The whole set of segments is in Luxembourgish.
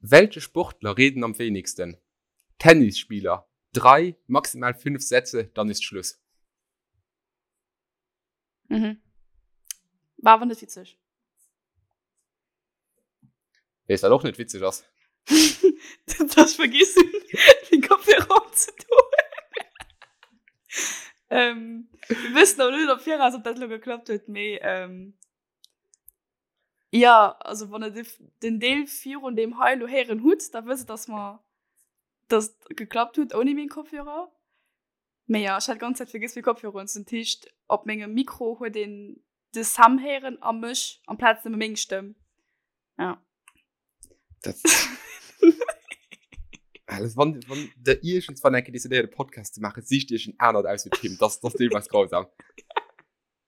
Welche Sportler reden am wenigsten? Tennisspieler. Drei, maximal fünf Sätze, dann ist Schluss. Mhm. War awer net witzeg. Weess wat och net witzeg ass? Dass ech vergiss hunn, den Kopfhörer opzedoen. ähm, wir wëssen awer net am Viraus, ob dat lo geklappt huet, mee ähm, ja, also wann der den Deel virun deem hei lo héieren hutt, da wësst dass mer dass et geklappt huet ouni meng Kopfhörer. Mee ja, ech hat ganz Zäit vergiss meng Kopfhörer unzedinn. Dat heescht, op mengem Mikro huet een de Sam héieren a mech amplaz nëmme meng Stëmm. Ja. Dat Alles, wann, wann der iergendswann eng Kéier decidéiert e Podcast ze maachen, sicht iech en anert aus wéi d'Kim. Das, das deelweis grausam.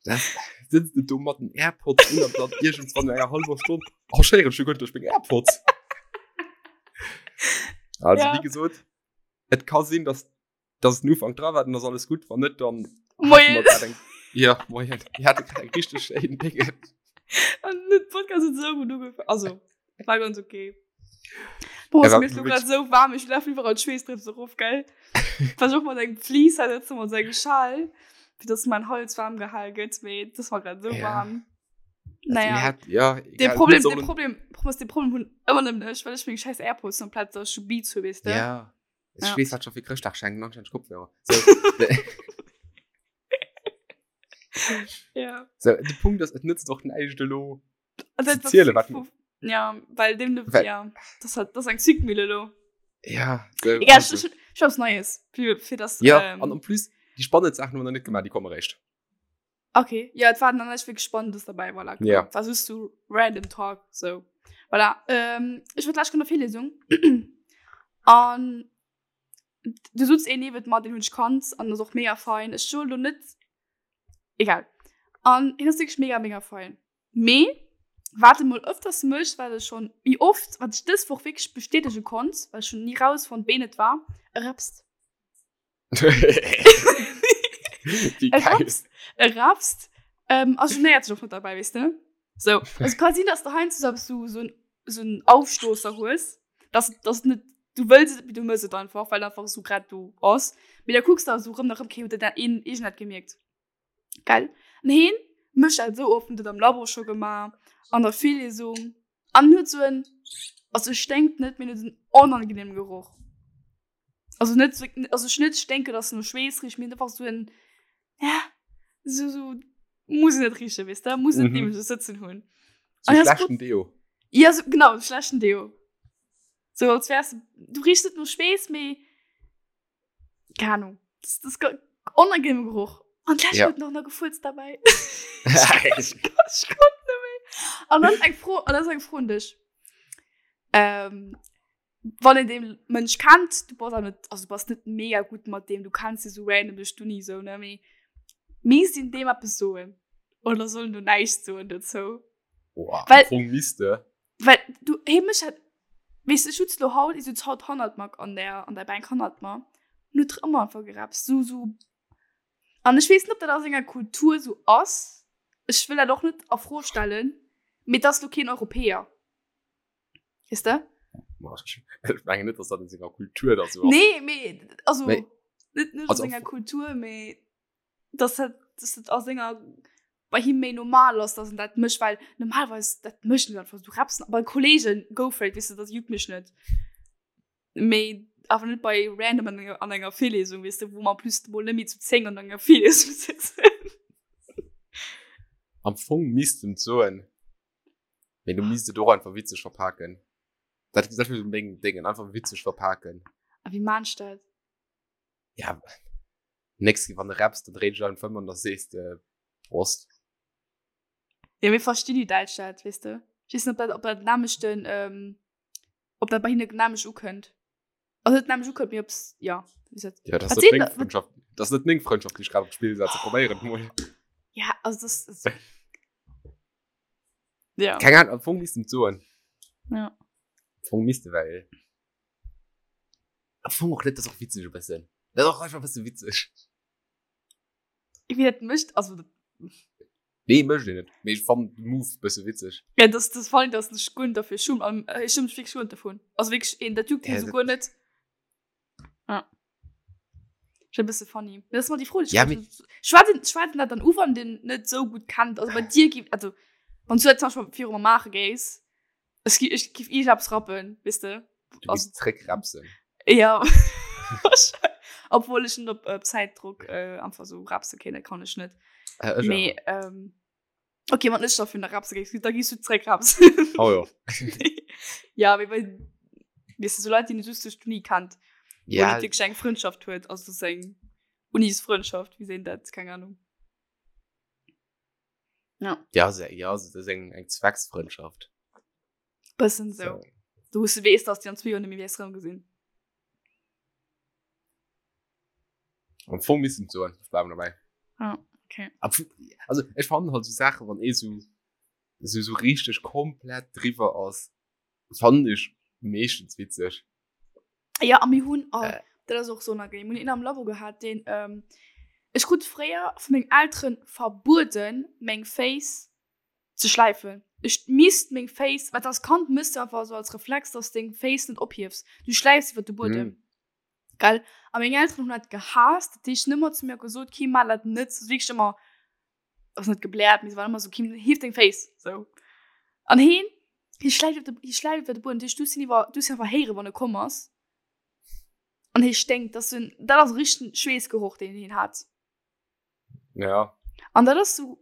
Das sitzt du do mat den Airpods un an dann iergendswann no enger halber Stonn, oh, ech héieren schon guer net duerch meng Airpods. Also, Ja. wéi gesot, et ka sinn, dass dass den Ufank dra war, dann ass alles gutt, wann net, dann Moien. Eng, ja, moien. Mir hate grad eng richtig schéin Dinge. An den Podcast huet sou gutt ugefaangen. Also, war ganz okay. Boah, Ja, mir ist grad so warm, ich laufe überall Schweißdrüpse rauf, gell? Versuch mal eng Fleece halt jetzt mal so Schal, fir dass mein Hals warm gehal gëtt, mee das war grad so Ja. warm. Also, Naja. mir hat, ja, Den egal, Problem, mir den sollen- Problem, Problem, den Problem hunn ëmmer nëmmen ech, well ech meng scheiß Airpods komplett so schon Beats hu, weess de? Ja. Ich Ja. weess, wat schon fir Chrëschtdag schenken, anscheinend Kopfhörer. So, de, Ja. so, de Punkt ass, et nützt och näischt elo. Also, Zu das- zielen, wat- Ja, well dem, Well- ja, das hat, das ist eng Zwickmühle lo. Ja, so, Egal, also. ich, ich, ich hab's Neues für, für das. Ja, ähm, an en plus, déi spannend Saachen hu mer nach net gemaach, déi komme réischt. Okay, ja, et war dann echt wirklich Spannendes dabei, voilà. Genau. Ja. War just so random Talk, so. Voilà, ähm, ich war gleich an der Virlesung. An du sutz een niewent mer, den hunn ech kannt, an das och mega fein. Ech soll lo net, egal. An hien ass wirklich mega, mega fein. Mee, wat e mol öfters mécht, wat e schon méi oft, wat ech dës Woch wirklich bestätege konnt, well ech hunn ni rausfonnt, ween et war, e repst. Wie E geil. rapst, e rapst, ähm, a genéiert sech och net derbäi, weess de? So, also ka sinn, dass de heiansdo so eppes so, so en, so en Aufstoßer hues, dass, dass net, du wëlls et, mee du mëss et einfach, well einfach esou grad do ass. Mee da kucks de esou rëm nach rëm, okay, huet dat een iergend dat gemierkt? Gell? An heen mécht dat esou oft, huet dat am Labo scho gemaach, an der Virlesung, an huet esou en, also e sténkt net, mee en huet en onangenehmen Geroch. Also net so, also ech net sténken, dass no Schweess richt, mee einfach so en, ja, so, so, muss net richen, weess de, muss net Mhm. neben sech sëtzen hunn. So Ah, ja, ist schlechten Deo. Ja, so, genau, schlechten Deo. So, als wärst du, du riechst net no Schweess, mee, keine Ahnung, das, das ist unangenehmer Geruch. An gleich Ja. huet noch nach gefurzt dabei. Ich konnt net méi. An dann eng Fro, an das ist eng Fro un dech. Ähm, wann een dee Mënsch kennt, du bass awer net, also du bass net mega gutt mat deem, du kenns dee sou random duerch d'Uni sou, ne, mee misst een deem eppes soen oder soll en do näischt soen dozou? Boah, Well- am Fong misst de. Well du, hee mécht dat, weess de, ech sutz lo haut, ech sutz haut hannert mer an der, an der Bänk hannert mer, an huet ëmmer einfach gerapst, sou, sou, an ech weess net, ob dat a senger Kultur sou ass, ech wëll dat och net a Fro stellen, mee et ass lo keen Europäer. Weess de? Ech mengen net, dass dat in senger Kultur da so ass. Nee, mee, also, Mee- net, net also a senger Kultur, mee dass dat, dass dat a senger, bei him méi normal ass, dass en dat mécht, well normalerweis, dat mécht en einfach, du rappst bei Kollegen, go for it, weess de, dat juckt mech net. Mee awer net bei random an enger, an enger Virlesung, weess de, wou mer en plus mol net méi zu 10 an enger Virlesung sitzen. Am Fong misst en soen. Mee du misst et och einfach witzeg verpaken. Dat dat wär meng Dingen, einfach witzeg verpaken. A wéi maan ech dat? Ja, nächst Keer wann de rapps, dann dréi dech einfach ëm an da sees de Prost. Ja, mir verstinn déi Däitsch dat, weess de. Ech weess net, ob dat, ob dat nämlechten, ähm, ob dat bei hinne nämlech ukënnt. Also net nämlech ukënnt, mee ob's, ja, wéi gesot. Ja, dat Wat ass net seet meng der- wat- Frëndschaft. Dat ass net meng Frëndschaft, déi ech grad op d'Spill setzen. Probéier et mol. Ja, also das, das Ja. Keng Ahnung, am Fong misst de et soen. Ja. Am Fong misst de, well am Fong och net, dat ass och witzeg e bëssen. Dat ass och einfach e bësse witzeg. Wéi dat mécht, also. Nee, mécht een net. Mee ech fannen de Move bësse witzeg. Ja, das, das fand ich, dass ich guer net dafür schum. An äh, ich schum mich wirklich guer net davon. Also wirklich, een, dat juckt Ja, hien so dat- guer net. Ja. Schon e bësse funny. Das ist mal die Fro, die ich Ja, ja, Schwätzen, schwätzen dat dann u, wann den net so gut kennt. Also bei dir gibt, also, wann du jetzt zum Beispiel viru mer maache géis, ech gi, ech giff iergendepps rappen, weess de? Du gehst zréckrapsen. Ja. Obwohl ich net op äh, Zeitdruck äh, einfach so rapse kenne, kann ich net. Äh, ech Mee, awer. ähm, okay, wann ech dafür nach rapse géif, da gehst du zréck rapsen. Oh ja. ja, mee bei, weißt du, so Leute, die du just durch d'Uni kennt, wo Ja, net wirklich eng Freundschaft huet, also das ist eng Unisfreundschaft, wie sehen dat, keine Ahnung. Ja. ja, se, ja, das ist eng, eng Zwecksfreundschaft. Bëssen so. So. Du wous du weess, dass déi an zwee Joer net méi wäers rëm gesinn. Am Fong misst en soen, ech bleiwen dobäi. Ah, okay. Am Fong, also ech fannen halt so Saachen, wann ee sou, sou, sou richteg komplett driwwer ass, fannen ech meeschtens witzeg. Ja, a mir hunn, oh, Äh. dat ass och sou unangenehm, mir hunn een am Labo gehat, deen, ähm, ech krut fréier vu mengem Elteren verbueden, meng Féiss ze schläifen. Ech misst meng Féiss, wat als Kand mëss du einfach so als Reflex, dass deng Féiss net ophiefs. Du schläifs iwwer de Buedem. Mm. Gell? A meng Elteren hunn dat gehaasst. Dat heescht, nëmmer zu mir gesot, Kim, maach dat net. So wierklech ëmmer, ass net gebläert, mee se waren ëmmer so, Kim, hief deng Féiss. So. An heen, hie schläift op de, hie schläift iwwer de Buedem. Dat heescht, du hues hien iwwer, du hues hien einfach héieren, wann e komm ass. An hie sténkt. Dat ass en, dat ass e richtegen Schweessgeroch, deen hien hat. Ja. An dat ass so,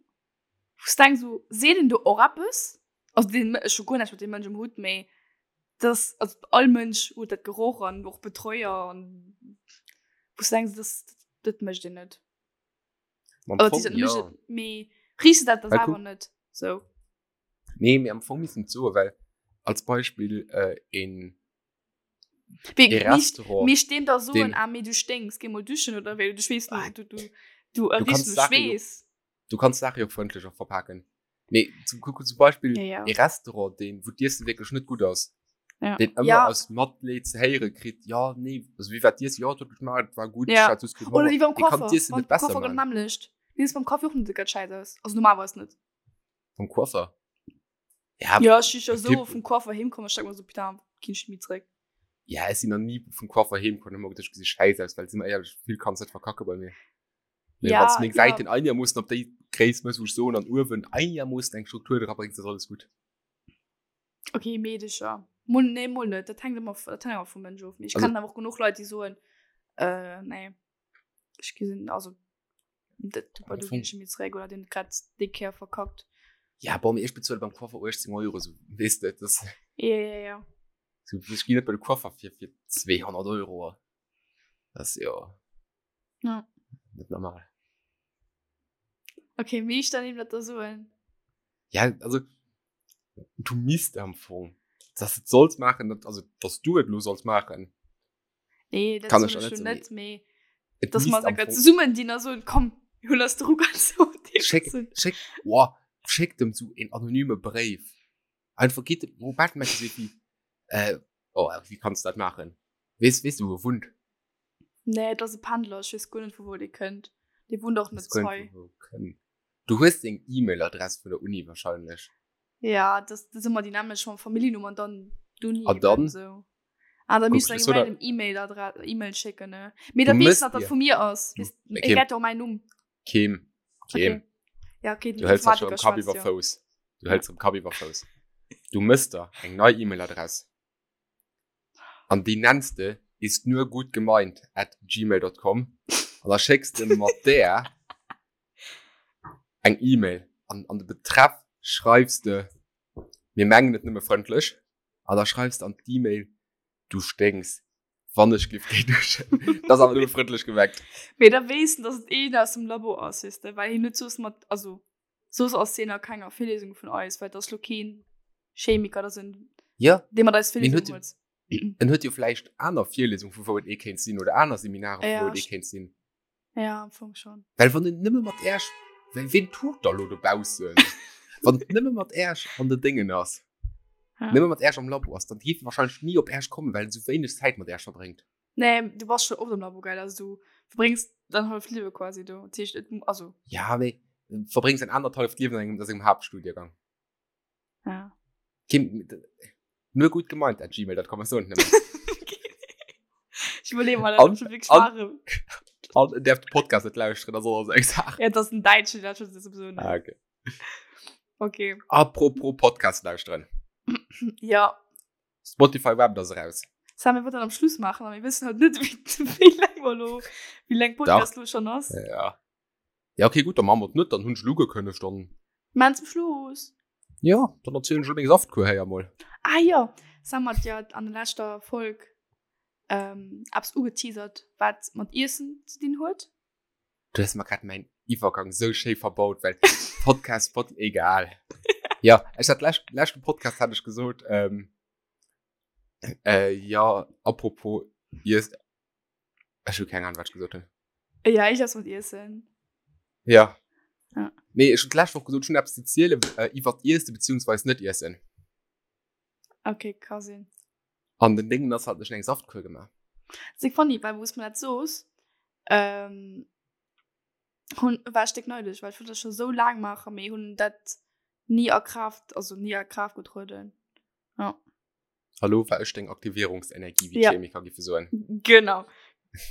wou s denks so, seet en do och eppes? Also deen, ech hu guer näischt mat deem Mënsch um Hutt, mee das, also all Mënsch huet dat Geroch an och Betreuer an wou s denks, das, dat mécht een net. Am Oder Fong, dat mécht ja. et, mee riechs de dat da Well selwer kuck- net sou? Nee, mee am Fong misst en soen, well als Beispill äh, een Wéi, ee Restaurant, Mir stehen da so den- ah, mee du stinks, geh mol duschen oder wéi, du schweess Ah, du, du, du, du kannst riechs no Sache jo- Schweess. du kannst Sache jo frëndlech och verpaken. Mee zum, kuck, zum Beispill Ja, ja. ee Restaurant, deen, wou d'Iessen wierklech net gutt ass, Ja. deen ëmmer Ja. aus Matleed ze héiere kritt, ja, nee, also wéi war d'Iessen? Ja, et huet geschmaacht, et war gutt, Ja. ech hat just keen Oder Honger. wéi beim Dee kann Coiffeur, d'Iessen beim net besser Coiffeur gëtt maachen. nämmlecht. Mir ass beim Kaffi och net ganz scheiss aus. Also normalerweis net. Beim Coiffeur? Ja, Ja, ech si jo so Tipp. vum Coiffeur heemkomm, ech denk mer so, putain, ginn ech méi zréck. Ja, ech sinn nach ni vum Coiffeur heemkomm, hu mer geduecht, ech gesi scheiss aus, well si mer éierlech, vill kanns net verkacke bei mir. Mee Ja, wann s meng ja. Säiten einigermoossen op déi Gréisst mëss, wou ech soen, an uewen einigermoossen eng Struktur dra bréngs, ass alles gutt. Okay, Meedecher. Mol, nee, mol net. Dat hänkt ëmmer, dat hänkt ëmmer vum Mënsch of. Mee ech Also- kennen awer och genuch Leit, déi soen, äh, nee, ech gesinn, also, dat, du, Am du Fong- ginn ech méi zréck oder den grad déi Kéier verkackt. Ja, bon, mee ech bezuele beim Coiffer 18 Euro, so, weess de, das, Ja, ja, ja. so, ech ginn net bei de Coiffer fir, fir 200 Euro. Das ass jo Ja. net normal. Okay, wie ich dann eben dat da soen. Ja, also, du misst am Fong, dass du et solls maachen, dat, also, dass du et lo solls maachen. Nee, dat Kann soll ech ich auch net schon so, net, mee Et dass misst mer am sogar Fong- zesummen dinn a soen, komm, mir hunn eis de Ruck an so. Schéck, schéck, boah, schéck dem so een anonyme Bréif. Einfach geht dem, wo Batman so wie, äh, oh, wie kannst du dat machen? Wees, wees du, wo er wunnt? Nee, dat ass e Pendler, ech weess guer net, vu wou dee kënnt. Dee wunnt och net Wees guer hei. net, vu wou kënnt. Du hues seng E-Mail-Adress vun der Uni wahrscheinlech. Ja, das, das ëmmer déi nämlech mam Familljennumm an dann d'Uni. An dann? eben So. Ah, da misst Guck, du so eng da- random E-Mail-Adresse, E-Mail schécken, ne? Mee da Du weess mësst nach, dat dir- vu mir ass. Du- Weess, Okay. e gett och mäin Numm. Keem, keem. Okay. Ja, okay, den Du hëls dat schon Informatiker am Kapp schwätzt iwwer jo. Fouss. Du hëls am Kapp iwwer Fouss. Du mëss der eng nei E-Mail-Adress. An déi nenns de ist nur gut gemeint at gmail.com. An da schécks de mat där eng E-Mail. An an de Betreff schreifs de, mir mengen et nëmme frëndlech. An da schreifs de an d'E-Mail, du sténks, wann ech giff géi duschen. Dat ass awer nëmme frëndlech gemengt. Mee da weess en, dass et een aus dem Labo ass, weess de, well hien huet soss mat, also soss ass hien a kenger Virlesung vun eis, well et ass lo keen Chemiker, dat ass en, Ja, dee mat eis Mee en Virlesung huet huet. en huet jo vläicht aner Virlesung, vu wou et ee kéint sinn, oder aner Seminare, vu Ja, wou et ee kéint sinn. Ja, am Fong schon. Well wann en nëmme mat Äerch, well ween tut da lo dobaussen? Wann et nëmme mat Äerch an de Déngen ass, Ja. nëmme mat Äerch am Labo ass, dann dierf e wahrscheinlech ni op Äerch kommen, well en sou wéineg Zäit mat Äerch verbréngt. Nee, du bass schon oft am Labo, gell? Also du verbréngs dein halft Liewe quasi do. Dat heescht, et, also. Ja, mee. Verbréngs en anderthalft Liewen an engem, a sengem Haaptstudiengang. Ja. Kim, nur gut gemeint at gmail.com, ech soen et nëmmen. Ich überlege mal, ob schon wirklich wahr An darf den Podcast net lauschteren, das ass eng Saach. Ja, das ist ein Deutsche, der schon sowieso nicht. Ah, okay. Okay. Apropos Podcast lauschteren. Ja. Spotify Wrapped ass eraus. Sam, wir wollten am Schluss machen, aber wir wissen halt nicht, wie, wie lang wir lo, wie lang Podcast lo schon ass. Ja. Ja, okay, gut, dann machen wir es nicht, dann hun ich lo gekündigt, dann. Machen zum Schluss. Ja, dann erzählen ich meng Saftkur hei emol. Ah ja, Sam hat ja an der letzter Folge ähm, eppes ugeteasert, wat mat Iessen ze dinn huet. Du hues mer grad mäin Iwwergang sou schéi verbaut, well Podcast, Pod, egal. Ja, ech hat lescht, leschten Podcast hat ech gesot, ähm, äh, ja, apropos Iess, ech hu keng Ahnung, wat ech gesot hunn. Ja, ich ess mat Iessen. Ja. Ja. Nee, ech hunn d'lescht Woch gesot, ech hunn eppes ze zielen äh, iwwert Iessen beziehungsweise net Iessen. Okay, ka sinn. An den Ding ass halt, ech hunn eng Saftkur gemaach. Sik funny, well wous mer dat soos, ähm, hunn, war ech déck neidesch, well ech wollt dat scho sou laang maachen, mee hunn dat ni a Kraaft, also ni a Kraaft getrueden. Ja. Hallo, war ech deng Aktivierungsenergie, wéi Ja. d'Chemiker giffe soen. Genau.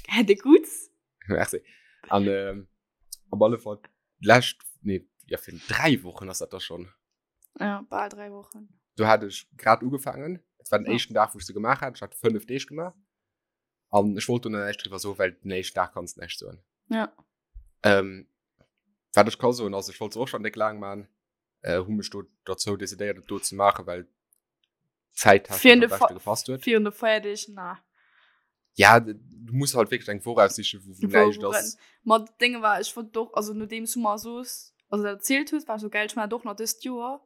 Hätt e gutt. Merci. An ähm, op alle Fall, d'lescht, nee, ja, fir 3 Wochen ass dat da schon. Ja, bal 3 Wochen. Do hat ech grad ugefaangen. Et war den Ja. éischten Dag, wou ech se gemaach hat. Ech hat 5 Deeg gemaach. An ech wollt do näischt driwwer soen, well den éischten Dag kanns näischt soen. Ja. Ähm, wat ech ka soen, ass, ech wollt se och schon déck laang maachen. Äh, hu mech do dozou decidéiert, et do ze maachen, well Zäittechnisch am de beschte gepasst huet. Virun de Feierdeeg, na. Ja, du muss halt wierklech eng Woch aussichen, wou, wou Wou- näischt wou ass. Ma d'Dénge war, ech wollt och, also nodeems du mer soos, also dat erzielt hues, war ech so geil, ech man dat och nach dëst Joer.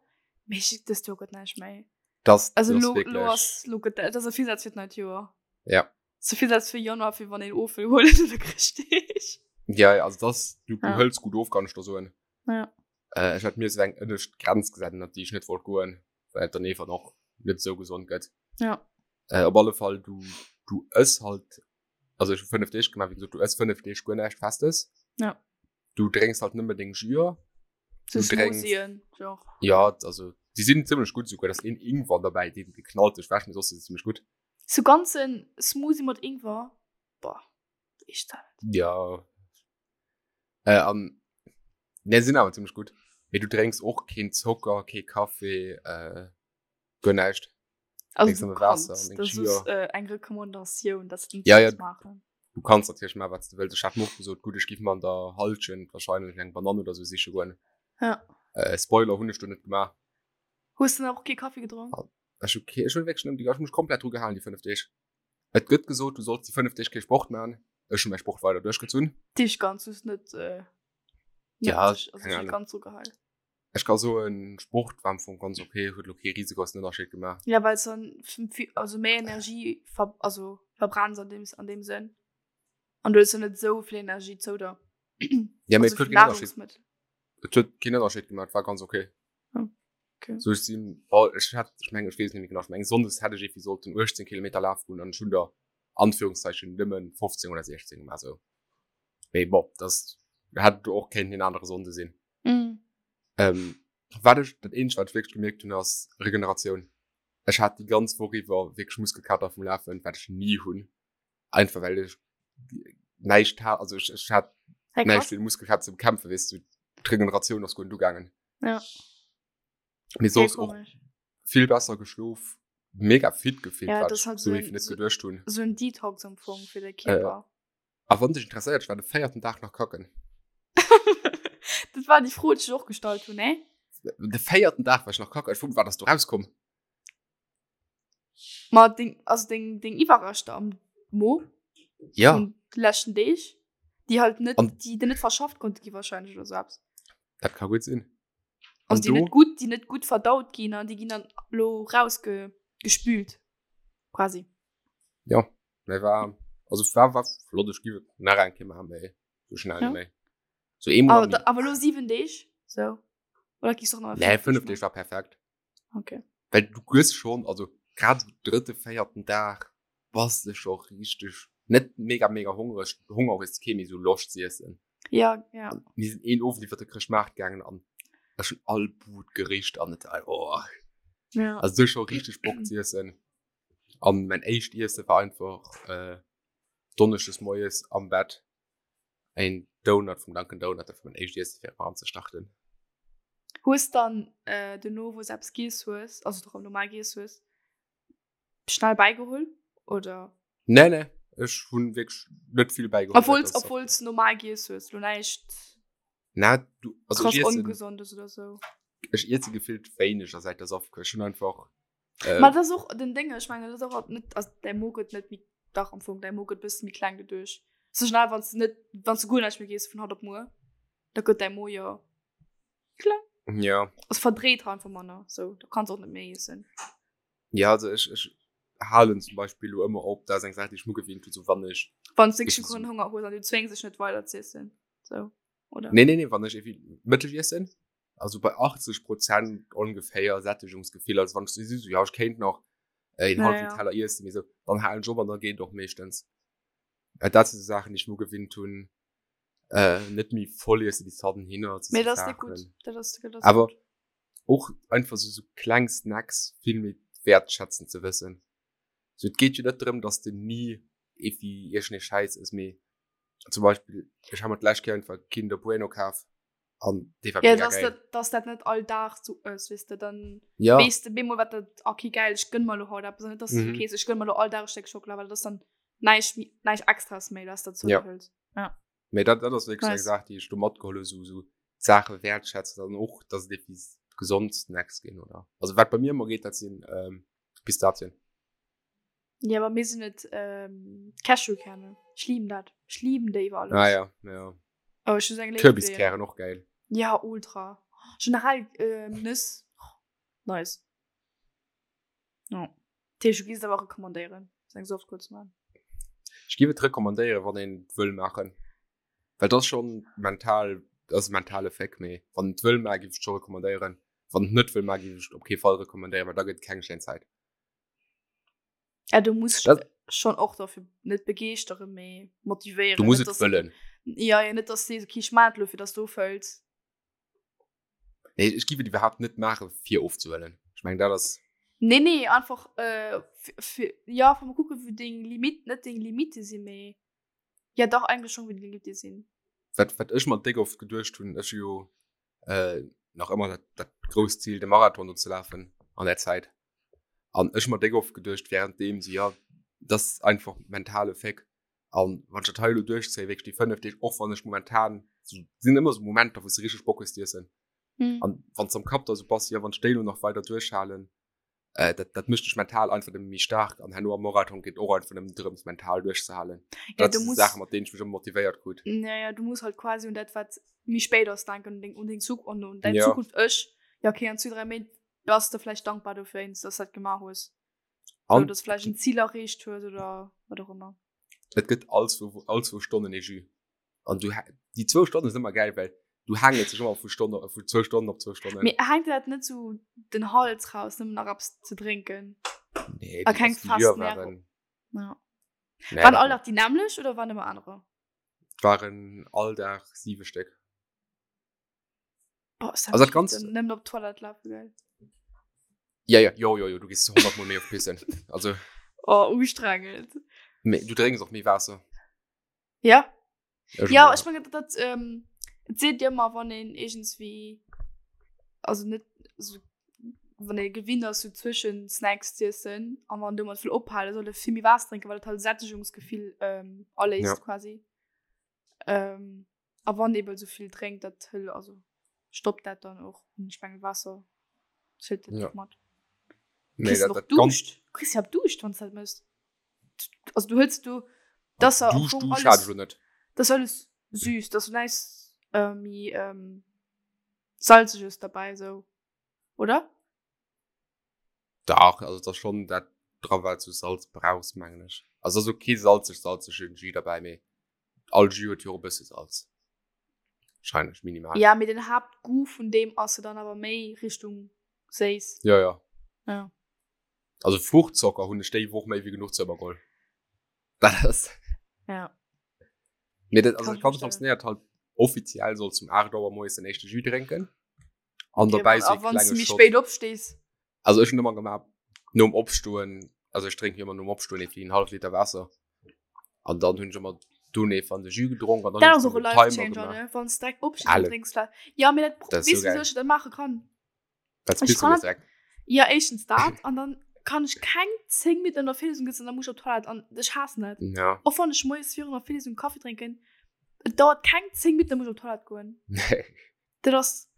Mee ech, dëst Joer gëtt näischt méi. Das, Also das lo, lo wierklech. ass, lo gëtt, dat ass e Virsaz fir d'neit Joer. Ja. Zu Virsaz fir Januar, fir wann een of wëll huelen oder Chrëschtdeeg. Ja, ja, also das, du, du Ja. hëls gutt of, kann ech der soen. Ja. Äh, ech hat mir sou eng ënnescht Grenz gesat, ënnert déi ech net wollt goen, well et dann einfach och net sou gesond gëtt. Ja. Äh, op alle Fall, du, du ëss halt, also ech hu 5 Deeg gemaach, wéi gesot, du ëss 5 Deeg guer näischt Festes. Ja. Du drénks halt nëmme deng Jüer. So Du drénks- Smoothien, genre. Ja, also, déi sinn zimmlech gutt souguer, da ass een Ingwer derbäi, deen geknallt sech wäscht, mee soss si se zimmlech gutt. So ganzen Smoothie mat Ingwer, boah, ich dat. Ja. Äh, an, ne, sinn awer zimmlech gutt. Mee du drénks och keen Zocker, kee Kaffee, äh, guer näischt. Also Drénks du nëmme Waasser kannst, an deng das Jüer. ist äh, eng Rekommandatioun, dass du Ja, ja. das machen. Du kanns natierlech maachen, wat s du wëlls. Ech hat mir och gesot, gutt, ech giff mer an der Halschent wahrscheinlech eng Banann oder sou siche goen. Ja. Äh, Spoiler, hunn ech do net gemaach. Hues du dann och kee Kaffi gedronk? Ech hu kee, ech hunn wierklech nëmmen déi, ech hu mech komplett dru gehalen déi 5 Deeg. Et gëtt gesot, du solls déi 5 Deeg kee Sport maachen. Ech hu mäi Sport weider duerchgezunn. Dich ganz dus net, äh, net Ja, dich, also keng dich Ahnung. ganz so gehal. Ech ka soen, Sport war am Fong ganz okay, huet lo kee risegrossen Ënnerscheed gemaach. Ja, well dann also méi Energie ver also verbrenns an dem an dem Sënn. An du hues jo net esou vill Energie zou der. Ja, mee Also et huet vun keen Ënnerscheed. Nahrungsmittel. Et huet keen Ënnerscheed gemaach, et war ganz okay. Oh, okay. So ech sinn, oh, ech hat, ech mengen, ech weess net méi genau, ech mengen Sonndes hätt ech irgendwie sollten 18 Kilometer lafe goen an ech hunn der Anführungszeichen nëmmen 15 oder 16 gemaach sou. Mee bon, das hätt och kéinten en anere Sonnde sinn. Mm. Ähm, wat ech, dat eenzegt wat ech wierklech gemierkt hunn ass Regeneratioun. Ech hat déi ganz Woch iwwer wierklech Muskelkater vum Lafen, wat ech ni hunn. Einfach well ech näischt hat, also ech, ech hat Hey, näischt krass. fir de Muskelkater ze bekämpfen, weess du. D'Regeneratioun ass guer net ugaangen. Ja. Mee Hey, soss och komisch. vill besser geschlof, mega fit gefillt, Ja, wat das ech halt sou so heefeg ein, net so, geduecht hunn. so ein Detox am Fong fir de Äh, Kierper. a wann dech interesséiert, ech war de véierten Dag nach kacken. Dat war déi Fro, déi ech och gestallt hunn, ne? De véierten Dag war ech nach kacken. Ech fro mech, wat ass do rauskomm? Ma deng, also deng, deng Iwwerreschter am Mo Ja. vun de leschten Deeg, déi halt net, An déi net verschafft konnte gi wahrscheinlech oder sou eppes. dat ka gutt sinn. Also An déi net do gutt, déi net gutt verdaut ginn an déi ginn dann lo rausge gespült quasi. Ja, mä war, also war, war flott. Ech giff et nach eng Kéier maachen, mä sou schnell Ja. net méi. Sou eemol Awer am da, awer lo 7 Deeg, sou. Oder giffs och nach Nee, 5 Deeg 5 maachen? Deeg war perfekt. Okay. Well du gëss schon, also grad sou drëtte, véierten Dag bass de scho richteg, net mega mega hongreg, Honger hues de kee, mee sou Loscht z'iessen. Ja, ja. Mir sinn een Owend iwwer de Chrëschtmaart gaangen an ech hunn all Bud gericht an et oh. Ja. Also du schon richtig Bock ze iessen. An mein éischt Iesse war einfach äh, Donneschdes moies am Bett ein Donut vum Dunkin Donut, dat war mein éischt Iesse fir erëm ze starten. Hues dann äh, dono wou s eppes giess hues, also doch normal giess hues, schnell bäigeholl oder? Nee, nee, ech hunn wierklech net vill bäigeholl. Obwohl obwohl s normal giess hues, lo näischt Na, du, also krass ech iessen, ongesondes oder sou. ech iesse gefillt wéineg säit der Softkuer. Ech hunn einfach äh, Ma dat ass och den Déng, ech mengen dat ass och net, also däi Mo gëtt net méi, dach am Fong, däi Mo gëtt bësse méi kleng doduerch. Sou schnell wann s de net, wann s de guer näischt méi giess vun haut op muer, da gëtt däi Mo jo kleng. Ja. Also verdréit einfach manner, sou, da kanns och net méi iessen. Ja, also ech, ech halen zum Beispill lo ëmmer op, dat ass eng Saach, déi ech mir gewinnt hunn, sou wann ech. Wann s de wierklech keinen Honger hues an du zwéngs dech net weider z'iessen, sou, oder? Nee, nee, nee, wann ech irgendwie Mëtteg iessen, also bei 80 Prozent ongeféier Sättegungsgefill, also wann ech sou, sou, ja, ech kéint nach een Ja, hallwen ja. Teller iessen, mee sou, dann halen ech op an da geet et och meeschtens. Äh, dat si sou Saachen, déi ech mir gewinnt hunn, äh, net méi voll iessen bis hannen hinner, Mee sou dat ass net Saachen. gutt, dat ass, dat ass Awer gutt. och einfach sou sou kleng Snacks vill méi wertschätzen ze wëssen. Sou et geet jo net drëm, dass de ni irgendwie iergendee Schäiss ëss, mee zum Beispill ech ha mer d'lescht Kéier einfach Kinder Bueno kaf an dee war Ja, mega dass geil. dat, dass dat net all Dag sou ëss, weess de, dann Ja. weess de bemol wat dat, okay geil, ech gënn mer lo haut eppes an net dass du Mhm. okay, ech gënn mer lo all Dag e Stéck Schockela, well dat ass dann näischt méi, näischt Extras méi, dass dat zou Ja. dir hëls. Ja. Mee dat, dat ass wierklech eng Nice. Saach, déi ech do matgeholl hu, sou, sou d'Saache wäertschätzen an och, dass et eppes gesond Snacks ginn, oder? Also wat bei mir ëmmer geet, dat sinn ähm, Pistazien. Ja, bei mir sinn et ähm, Cashewkerne. Ech lieben dat. Ech lieben déi iwwer alles. Ah ja, ja. Oh, ech hu sou eng Léift fir déi. Kürbiskären och geil. Ja, ultra. Generell ähm, Nëss. Nice. Ja. Tisch, du gehst aber rekommandéieren, seng Softcore ze man. Ech géif et rekommandéieren, wann een et wëll maachen. Well dat ass schon mental, dat ass e mentale Féck, mee wann et wëll maachen, géif ech et scho rekommandéieren. Wann et net wëll maachen, géif ech et op kee Fall rekommandéieren, well da gëtt et keng schéin Zäit. Ja, du muss Dat schon och dafür net begeeschteren, mee motivéieren. Du muss Net, et dass- wëllen. Ja, ja, net, dass du sees, okay, ich mach et lo, fir dass du ofhëls. Nee, ech géif et iwwerhaapt net maachen, fir ofzehuelen. Ech mengen, dat ass. Nee, nee, einfach, äh, fir, fir, ja, fir mal kucken, wou deng Limit, net deng Limite sinn, mee, ja dach, eigentlech schon, wou deng Limite sinn. Wat, wat ech mer déck oft geduecht hunn, ech hu jo äh, nach ëmmer dat, dat grousst Zil, de Marathon do ze lafen an der Zäit. An ech hu mer déck oft geduecht, währenddeem so, ja, dat ass einfach mentale Féck. An wann ech dat hei elo duerchzéien, wierklech déi 5 Deeg, och wann ech momentan, so, sinn ëmmer sou Momenter, wou s de richteg Bock hues z'iessen. Mhm. An wann s am Kapp da sou bass, jo, wann ech déi elo nach weider duerchhalen, äh, dat, dat mécht dech mental einfach nëmme méi staark. An herno am Marathon geet och einfach nëmmen drëms, mental duerchzehalen. Ja, Dat du si muss, Saachen, mat deenen ech mech ëmmer motivéiert krut. ja, ja, du muss halt quasi un dat, wat méi spéit ass, denken, un deng, un deng Zuk-, un, un däin Ja. Zukunft-Ech. Ja, okay, an zwee, dräi Méint bass de vläicht dankbar dofir, dass du dat gemaach hues. So, An dass du vläicht en Zil erreecht hues oder wat och ëmmer. et gëtt all zwou, all zwou Stonnen ee Jus. An du, déi zwou Stonnen sinn ëmmer gäil, well du haangels dech ëmmer vu Stonn, vu zwou Stonnen op zwou Stonnen. Mee hänkt dir dat net sou den Hals raus, nëmmen nach eppes ze drénken? Nee, A déi, keng also déi fest Jüer Nährung. waren, Ja. nee, Waren dat all net. Dag déi nämmlecht oder waren ëmmer anerer? Et waren all Dag siwe Stéck. Boah, ist Also dat ganz Ganzt- nëmmen op d'Toilette lafen, gell? Ja, ja, jo, jo, jo, du gehst 100 Mol méi op pissen. Also, Oh, ustrengend. mee, du drénks och méi Waasser. Ja. Ech Ja, ja. ech mengen, dat, dat, ähm, et seet dir ëmmer, wann een irgendwie, also net, also, wann ee gewinnt ass, so zwëschen Snacks z'iessen, an wann domat wëll ophalen, soll e vill méi Waasser drénken, well et halt Sättegungsgefill, ähm, aléist Ja. quasi. Ähm, a wann eben so vill drénkt, dat hëll, also stoppt dat dann och. Und ich mengen, Wasser zählt dat Ja. och mat. Nee, Kriss du dat, noch dat ganz Duuscht? Du kriss ja Duuscht, wann du dat mëss. Also du hëls du, das am Duuscht, Fong Duuscht hat alles, ech lo net. das ist alles süß, das ist nice, äh, méi ähm, salziges dabei, so. Oder? Dach, also dat ass schon dat dra wat du Salz brauchs, mengen ech. Also ass och kee salzeg salzegen Jus derbäi, mee all Jus huet jo och e bësse Salz. Wahrscheinlech minimal. Ja, mee den Haaptgoût vun deem ass jo dann awer méi Richtung séiss. Ja, ja. Ja. Also Fruchtzocker hunn ech déi Woch méi wéi genuch zou mer geholl. Dat ass. Ja. Mee dat, also Kann dat ich Ganzt verstehen. funktionéiert halt. Offiziell solls du um 8 Auer moies den éischte Jus drénken. An okay, dobäi so wann du méi spéit opstees. Also ech hunn ëmmer gemaach nom Opstoen, also ech drénken ëmmer nom Opstoen ee en hallef Liter Waasser. An dann hunn ech ëmmer dunn ee van de Jus gedronk an dann Dat ass och e Life Changer, ne? Wann s direkt opstees an drénks Waasser. Ja, mee dat, dat weess du wéi ech dat maache kann? Wat bist du direkt? Ja, éischtens dat an dann kann ech keng 10 Minutten an der Virlesung sëtzen, dann muss ech op d'Toilette an ech haassen dat. Ja. Och wann ech moies virun der Virlesung Kaffi drénken, et dauert keng 10 Minutten, dann muss ech op d'Toilette goen. Nee. Dat ass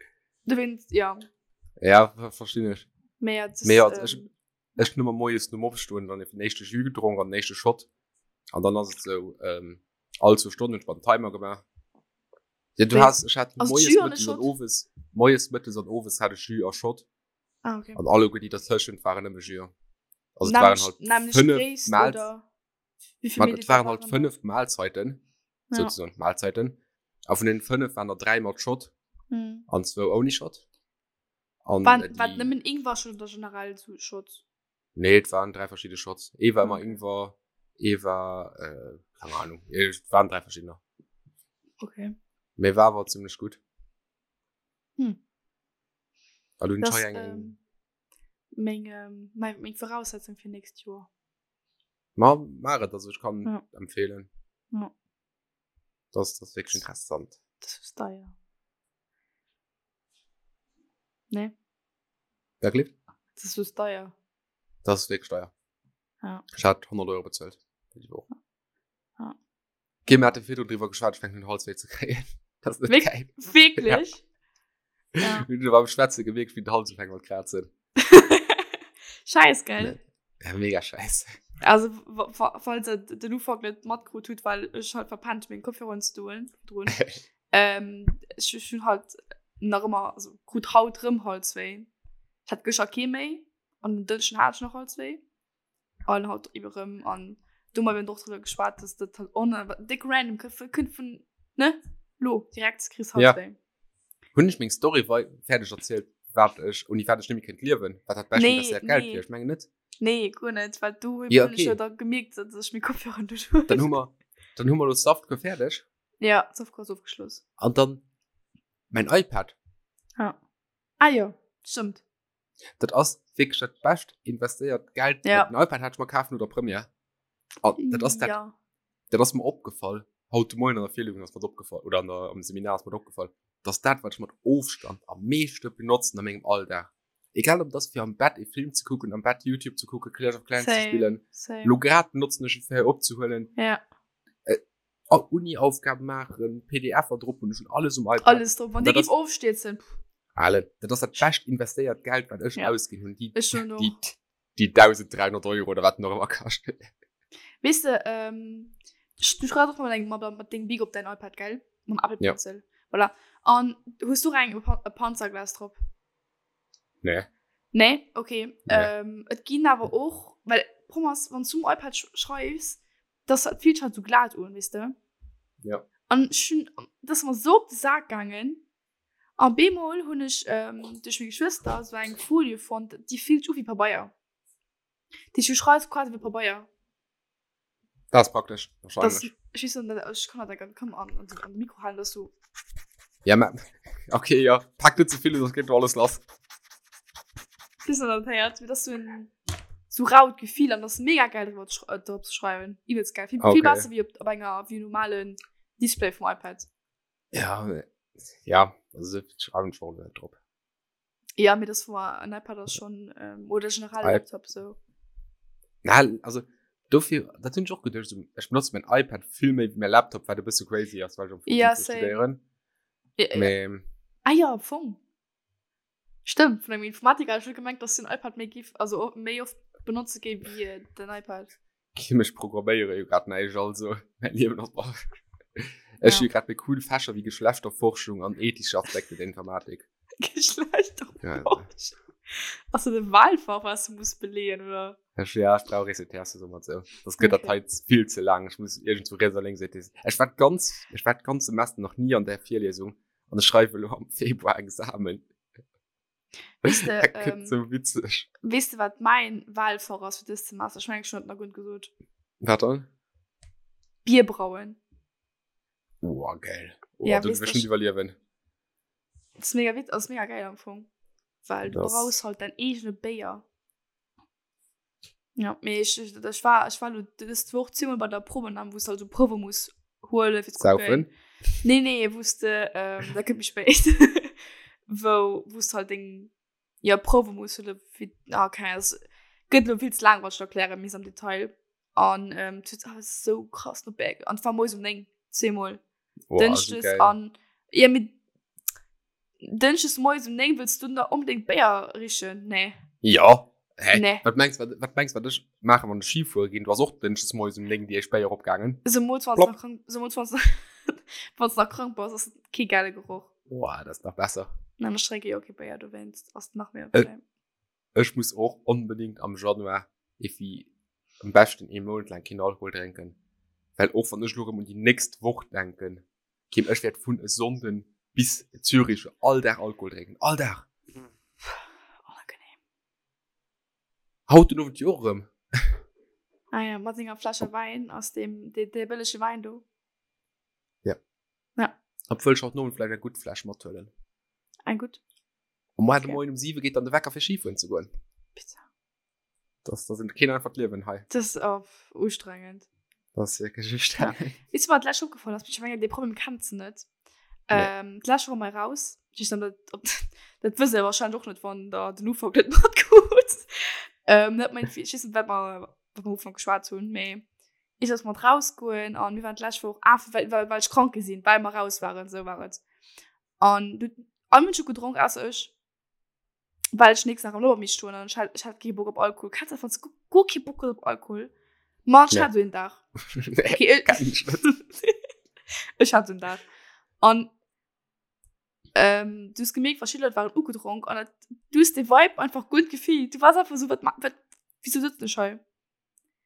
dowéinst, ja. Ja, verstinn ech. Mee ja, das, Mee ja, ech, ähm, ech hunn ëmmer moies nom Opstoen dann den éischte Jus gedronk an den éischte Shot. An dann ass et sou, ähm, all zwou Stonnen hunn ech mer den Timer gemaach. Ja, du Wéi? has, ech hat Also moies, Jus an e mëttes an Shot? owes, moies, mëttes an owes hat ech Jus a Shot. Ah, okay. An alleguer déi dertëschent waren nëmme Jus. Also et waren Nämlech, halt nämlech fënnef Gréisst Mahl, oder wéi vill man, et Milliliter waren halt waren dat? fënnef Mahlzeiten, Ja. sozusagen Mahlzeiten. A vun den fënnef waren der dräi mat Shot Hm. an zwou ouni Shot. An Waren, äh, war déi, nëmmen Ingwer-Shot oder generell so Shots? nee, et waren dräi verschidde Shots. Ee war ëmmer Okay. Ingwer, ee war, äh, keine Ahnung, et waren dräi verschiddener. Okay. Mee war awer zimmlech gutt. Hm. An hunn Das, ech hei eng, ähm, meng, ähm, meng, meng Voraussetzung fir nächst Joer. Ma maach et, also ech kann Ja. empfehlen. Ja. Das, das ist wirklich interessant. Das ist deier. Nee. Wirklich? Das ist deier. Das ist wirklich teuer. Ja. Ich hat 100 Euro bezahlt. Für die Woche. Ja. Okay, wir hatten viel drüber geschwatzt, ich fängt den Hals weh zu kriegen. Das ist nicht Wirk geil. Wirklich? Ja. ja. Du beim Schwätzen gemerkt, wie den Hals fängt mit kratzen. Scheiß, gell? Ja, mega scheiß. Also, falls ihr den Ufang nicht mitgekriegt habt, weil ich halt verpennt meinen Kopfhörer zu tun. ähm, ich, ich hun halt nach immer, also krut haut rëm Halswéi. Ich hat gëschter kee méi an den Dënschden hat ich nach Halswéi. An haut iwwer rëm an do mal och drüber geschwat, dass dat halt on dick random kënnt vun ne lo direkt kriss Halswéi. Ja. Hunn ech meng Story wei fäerdeg erzielt, wat ech ouni wat ech net méi kéint liewen, wat dat bescht Nee, investéiert Geld nee. wier? Ech mengen net. Nee, guer net, well du Ja, hunn ech okay. jo da gemierkt, dass ech meng Kopfhörer net hunn. Dann hu mer dann hu mer lo Softcore fäerdeg. Ja, Softcore ass ofgeschloss. An dann mein iPad. Ja. Ah jo, stëmmt. Dat ass wierklech dat bescht investéiert Geld. Ja. Den iPad hat ech mer kaf no der Première. An dat ass dat, Ja. dat ass mer opgefall. Haut de Moien an der Virlesung ass mer dat opgefall, oder an der, am Seminar ass mer dat opgefall, dass dat, wat ech mat Ofstand am meeschte benotzen a mengem Alldag, egal ob dat ass fir am Bett e Film ze kucken, am Bett YouTube ze kucken, Clash of Clans ze Same, spillen, same. lo grad benotzen ech et fir hei opzehuelen, Ja. Uni-Aufgaben maachen, PDFer drop hunn, ech hunn alles um iPad. Alles drop. Wann Dat déi ass- géif ofstierzen. pff, Ale, dat ass dat bescht investéiert Geld, wat ech Ja. ausginn hunn, déi, Ech schon och. déi, déi 1300 Euro oder wat nach ëmmer kascht. Weess de, ähm, du schreifs och mat engem, mat, mat dengem Bic op däin iPad, gell? Mam Apple Ja. Pencil. Voilà. An hues du och eng, e Panzerglas drop? Nee. Nee? Okay. Nee. Ähm, et ginn awer och, well Problem ass, wann du um iPad sch schreifs, das dat fillt halt so glat un, weess de? Ja. An ech hunn, dat ass mer sou op de Sak gaangen. A bemol hunn ech ähm, duerch meng Geschwëster sou eng Folie fonnt, déi fillt sech u wéi Pabeier. Déi du schreifs quasi wéi Pabeier. Dat ass praktesch, Das, wahrscheinlech. ech weess net, ech kann dat ganz komm an, an, an de Mikro halen, dass du. Ja, ma, okay, ja. Pack net ze vill, sonst geht alles lass. Bis an dat héiert, wie das so en so raut Gefill an das mega geil drüber zu äh, drop zu schreiben. Übelst geil. Viel, Okay. viel besser wie op, op enger wie normalen Display vom iPad. Ja, ja, also schreiben schon net drop. Ja, mir das war ein iPad ass schon ähm, oder generell I- Laptop so. Na, also dofir dat hunn ech och geduecht, so, ech benotze mein iPad vill méi wéi mein Laptop, wat e bësse crazy ass, well ech am Fong Ja, fir same. studéieren. Ja, ja. Mee Ah ja, am Fong. Stimmt, vun engem Informatiker hat ech net gemengt, dass den iPad méi giff, also o- méi oft benotze géif wéi äh, den iPad. Kim ech programméiere jo grad näischt, also mäin Liewen ass bar. Ech Ja. hu grad méi cool Fächer wéi Geschlechterforschung an ethische Aspekte der Informatik. Geschlechterforschung. Ass dat e Wahlfach, was du muss beleeën, oder? Ech, ja, ech brauch ECTS oder mat sou. Das gëtt dat Okay. hei vill ze laang. Ech muss iergendwou riets a lénks ETS. Ech war d'ganz, ech war d'ganz Semester nach ni an där Virliesung an ech schreiwe lo am Februar Examen. Weess de, Dat gëtt ähm, sou witzeg. weess de, wat mäin Wahlfach ass fir dëst Semester? Ech mengen, ech hunn dat nach guer net gesot. Wat dann? Bier brauen. Oh, geil. Oh, ja, du wirst überleben. Das ist mega witz, das ist mega geil am Fong. Weil du das brauchst halt dein eigene Béier. Ja, mee ech, ech, ech war, ech war lo dës Woch zweimal bei der Probenam, wou s halt so Probe muss huelen fir ze Saufen? kucken. Nee, nee, wou s de, ähm, dat kënnt méi spéit, wou, wou s de halt deng, ja, Probe muss huelen fir, ah, keng Ahnung, das gëtt lo vill ze laang, wann ech dat erklären misst am Detail. An, ähm, et huet awer sou krass no Béier, an et war moies um 9, zweemol. Oh, also Dënschdes geil. an, ja, mee Dënschdes moies um 9 wëlls du da onbedéngt Béier richen? Nee. Ja. Hä? Nee. Wat mengst wat, wat mengst wat ech maachen, wann ech Ski fuere ginn? Du ass och dënschdes moies um 9 déi éischt Béier opgaangen. Zemools wann s Plopp. nach krank, zemools wann s wann s nach krank bass, ass et kee gäile Geroch. Boah, dat ass nach besser. Nein, ech drénke jo kee Béier, dowéinst ass et nach méi Äh, okay. Ech muss och onbedéngt am Januar evi am beschten ee Mount laang keen Alkohol drénken, well och wann ech elo erëm un déi nächst Woch denken, Kim, ech wäert vun e Sonnden bis Zürich all Dag Alkohol drénken. All Dag! Onangenehm. Haut den Owend jo och erëm. Ah ja, mat senger Fläsche Wäin aus dem, dee, dee bëllege Wäin do. Ja. Ja. Obwuel ech haut den Owend vläicht eng gutt Fläsch mathuelen. Eng gutt? Um Moien, Okay. Moien um 7 geet dann de Wecker fir Skifueren ze goen. Bitte. Das, das ist keen einfacht Liewen hei. Das ist oh, ustrengend. Das ist wirklich ustrengend. Ja. Weißt du, was letztes aufgefallen ist? Ich meine, den Problem kennst du nicht. Nee. Ähm, letztes Woche mal raus. Ich dann, dat, ob, das wisst ihr wahrscheinlich auch nicht, wann da den Ufang nicht mitgeht. Ähm, nicht mein, ich weiß nicht, was wir, was wir Ufang geschwätzt haben, aber ich sollte mal rausgehen und wir waren letzte Woche, ah, weil, weil, weil ich krank gesehen, weil wir raus waren, so war es. Und du, alle Menschen getrunken, außer ich. Well ech nächsten Dag am Lower misst stoen an ech hat, ech hat kee Bock op Alkohol. Kennst du dat, wann s du guer kee Bock hues op Alkohol? Ma ech Nee. hat sou een Dag. Nee, Okay, ech, kenn ech net. ech hat sou een Dag. An ähm, du hues gemierkt, verschidde Leit waren ugedronk an dat, du hues de Vibe einfach guer net gefillt. Du waars einfach sou, wat ma, wat, wieso sëtzen ech hei?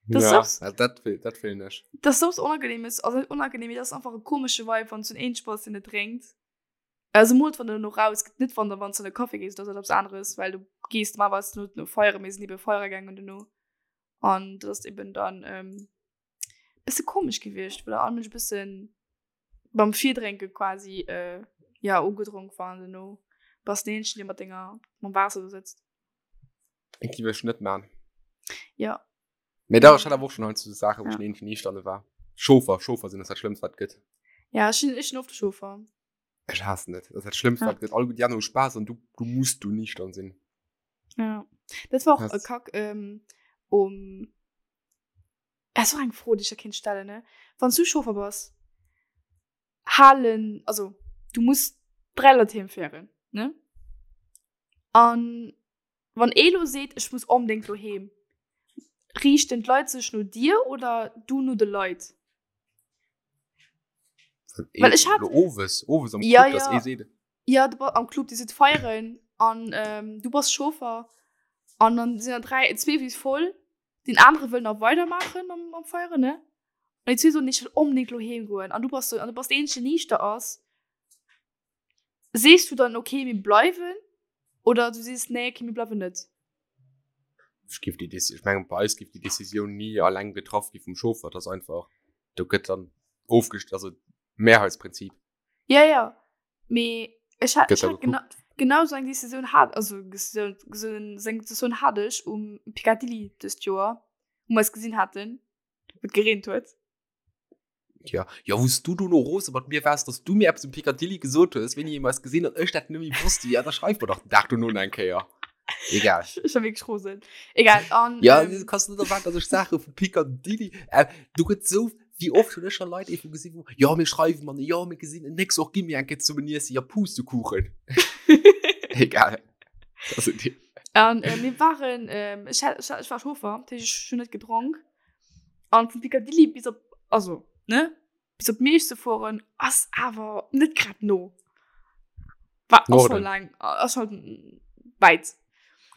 Das Ja, ist ja, dat feel, dat feelen ech. Das ist sowas Unangenehmes, also net unangenehm, mee das ist einfach e komesche Vibe, wann s du en eenzeg bass, deen net drénkt. Also mol wann du no raus geht net wann der wann du an de Café gees das etwas anderes weil du gehst mal was nur no feiere mir sind eben feiere gegangen duerno an das ist eben dann ähm, bisschen komisch gewiescht weil all Mensch bisschen beim Virdrénke quasi äh, ja ugedronk waren duerno bass den eenzegen dee mat denger mam Waasser do sëtzt. Eng gi ech net man. Ja. Mee da ech hat awer och schon halt so Saachen, wou Ja. ech den eenzegen Niichterne war. Chauffer, Chauffer sinn ass dat Schlëmmst wat gëtt. Ja ech sinn ech sinn oft de Chauffer. Ech haassen et. Dat ass dat Schlëmmst, Ja. wat gëtt. All déi aner hu Spaass an du, du muss du niichtern sinn. Ja. Dat war och e Hass. Kack ähm, um. Das war eng Fro, déi ech der kéint stellen, ne? Wann s du Chauffer bass, halen, also du muss 3 Leit heem féieren, ne? An wann ee lo seet, ech muss onbedéngt lo heem, riichten d'Leit sech no dir oder du no de Leit? Well ech hat- Lo owes, owes am Ja, Club, dass ja. ee seet, Ja, du am Club, déi sidd feieren an ähm, du bass Chauffer an dann sinn der 3, zwee wis voll, den anere wëll nach weidermaachen am, am Feieren, ne? An déi zwee soen, ech wëll onbedéngt lo heem goen an du bass so, an du bass deen eenzegen, deen niichter ass. Sees du dann okay mir bleiwen oder du sees nee okay mir bleiwen net? Ech géif déi Déci-, ech mengen bei eis géif déi Decisioun ni alleng getraff gi vum Chauffer, dat ass einfach, do gëtt dann ofgest-, also Mehrheitsprinzip. Ja ja, mee ech hat, Gëtt ech da hat genau, genau sou eng Decisioun hat, also Decisioun, sou eng Decisioun hat ech um Picadilly dëst Joer, wou mer eis gesinn haten, wou et gereent huet. Ja, ja wous du do no rose mat mir waars, dass du mir eppes um Picadilly gesot hues, wéini mir eis gesinn an ech dat net méi wosst. Ja, da schreif mer dach den Dag dono nach eng Kéier. Egal. Ech war wierklech rosen. Egal. An, Ja, ähm, du kanns net erwaarden, dass ech Saache vu Picadilly. Äh, du gëtt sou, wéi oft hunn ech scho Leit efu gesinn, wou, jo, mir schreiwen man, jo, mir gesinn en nächst och, gi mir eng Kéier zesummen iessen, ja, Pustekuchen. Egal. Das sind die. An äh, mir waren, ähm, ech, hat, ech, ech war Chauffer, dat heescht, ech hunn net gedronk. An vun Picadilly bis op, also, ne, bis op Miersch ze fueren, ass awer net grad no. War ass schon Norden. lang, ass schon weit.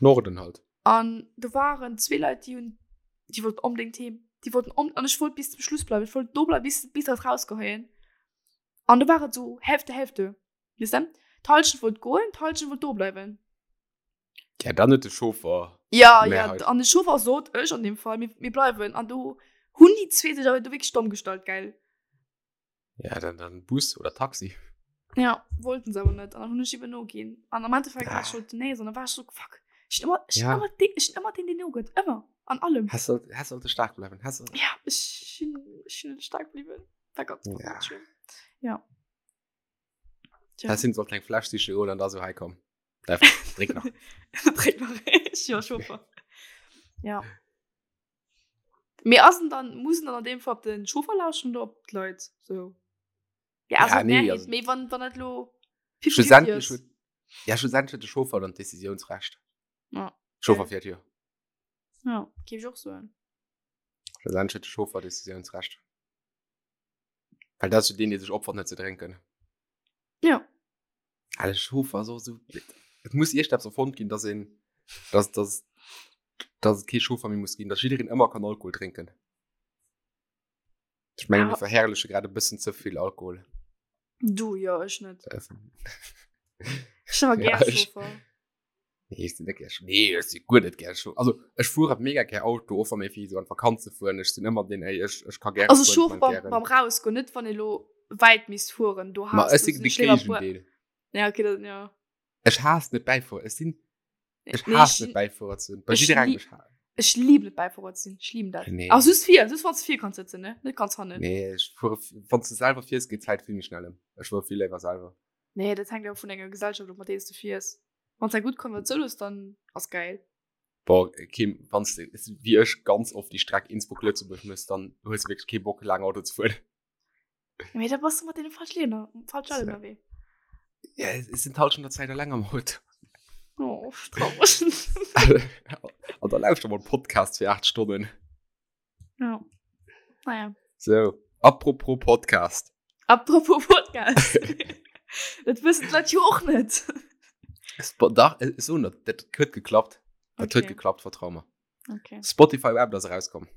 Norden halt. An do waren zwee Leit, déi hunn, déi wollten onbedéngt heem. Déi wollten on, an ech wollt bis zum Schluss bleiwen. Ech wollt do bleiwen, bis, bis dat rausgeheien. An do war et so Hälfte, Hälfte. Weess de? D'Hallschent wollt goen, d'Hallschent wollt do bleiwen. Ja, dann huet de Chauffer. Ja, ja, Mehrheit. an de Chauffer sot, ech an dem Fall, mir, mir bleiwen. An do hunn déi zwee sech awer do wierklech domm gestallt, gell? Ja, dann, dann Bus oder Taxi. Ja, wollten se awer net. An dann hunn ech eben noginn. An am Endeffekt ah. war ich schon nee, sondern war ich so, fuck. Ich bin immer, ich ja. immer, den, ich bin immer den, den nogëtt. Ëmmer. An allem. Hast du, hast sollte stark bleiben. Hast du... Ja, ich bin, ich bin stark blieben. War ganz, ja. ganz schön. Ja. Tja. Das sind sollte eng Fläsch sicher holen an da so heikomm. Drink nach. Drink nach. Ja, Chauffeur. Ja. Mir ass dann muss dann an dem Fall op den Chauffeur lauschen oder op d'Leit so. Ja, also ja, nee, also, mee wann wann dat lo schlussendlich huet ja schlussendlich huet de Chauffeur dann d'Decisiounsrecht. Ja. Chauffeur fiert jo. Ja, géif ech och soen. Schlussendlich huet de Chauffeur Decisiounsrecht. Well dat ass jo deen, dee sech opfert net ze drénken. Ja. Ah, de Chauffer ass och esou. Et muss iergendeppes erfonnt ginn, dass een, dass, dass, dass et kee Chauffer méi muss ginn, dass jiddereen ëmmer kann Alkohol drénken. Ech mengen, mir verherrleche grad e bëssen ze vill Alkohol. Du jo, ech net. Ech sinn awer gär Chauffer. Nee, ech sinn net gär Nee, ech si guer net gär Chauffer. Also ech fuere mega gär Auto, och wa mir fir esou an d'Vakanz ze fueren. Ech sinn ëmmer deen, ey, ech, ech ka gäre Also fueren, ech Chauffer beim, beim Rausgoen, net wann ee lo wäit misst fueren. Do Ma ech sinn de Géigendeel. Ja, okay, dat, ja. Ech haass net Bäifuerer. Ech sinn, ech nee, haass net Bäifuerer ze sinn. Bei jidderengem, ech haass. Ech lieben et Bäifuerer ze sinn. Ech lieben dat. Nee. Ach, just vir, just wann s vir kanns sëtzen, ne? Net ganz hannen. Nee, ech fuere, wann s du selwer fiers, geet d'Zäit vill méi schnell ëm. Ech fuere vill léiwer selwer. Nee, dat hänkt awer vun denger Gesellschaft of, mat deenen s du fiers. Wann s eng gutt Konvertioun hues, dann ass gäil. Boah, Kim, wann s de wéi ech ganz oft déi Streck Innsbruck-Lëtzebuerg mëss, dann hues de wierklech kee Bock laang Auto ze fueren. Mee da bass du mat deene falsche Leit falsche Leit ënnerwee. Ja, ech sinn d'Hallschent der Zäit eleng am Auto. Oh, traureg. An da lauschter mol Podcast fir 8 Stonnen. Ja. Naja. So, apropos Podcast. Apropos Podcast. Dat wëssen d'Leit jo och net. Dach, so net, dat huet geklappt. Dat huet geklappt, vertrau mer. Okay. Spotify Wrapped ass erauskomm.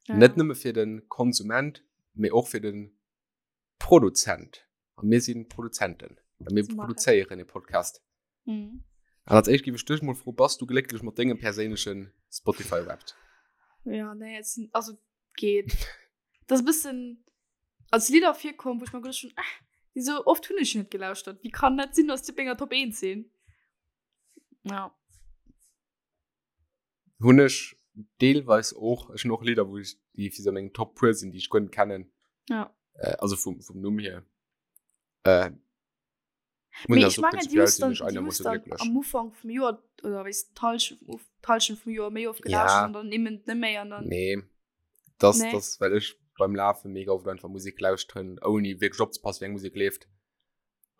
Ja. Net nëmme fir den Konsument, mee och fir den Produzent. A mir sinn Produzenten. A mir produzéieren e Podcast. Mhm. An als éischt géif ech dech mol froen, bass du glécklech mat dengem perséinlechen Spotify Wrapped? Ja, nee, et sinn, also geet. Das e bëssen als Lidder virkomm, wou ech mer geduecht hunn, ah, déi sou oft hunn ech net gelauschtert. Wéi kann dat sinn, dass déi op menger Top 1 sinn? Ja. Hunn ech deelweis och. Ech hunn och Lidder, wou ech, déi fir sou meng Top puer sinn, déi ech guer net kennen. Ja. Äh, also vum, vum Numm hier. Äh, Mee ech mengen, déi hues dann, déi hues dann am Ufank vum Joer oder wéis d'Hallschent vum, d'Hallschent vum Joer méi oft gelauschtert ja. an dann eben net méi an dann. Nee, das, nee. das well ech beim Lafe mega oft einfach Musik lauschteren, ouni wierklech opzepassen, wéi eng Musik leeft.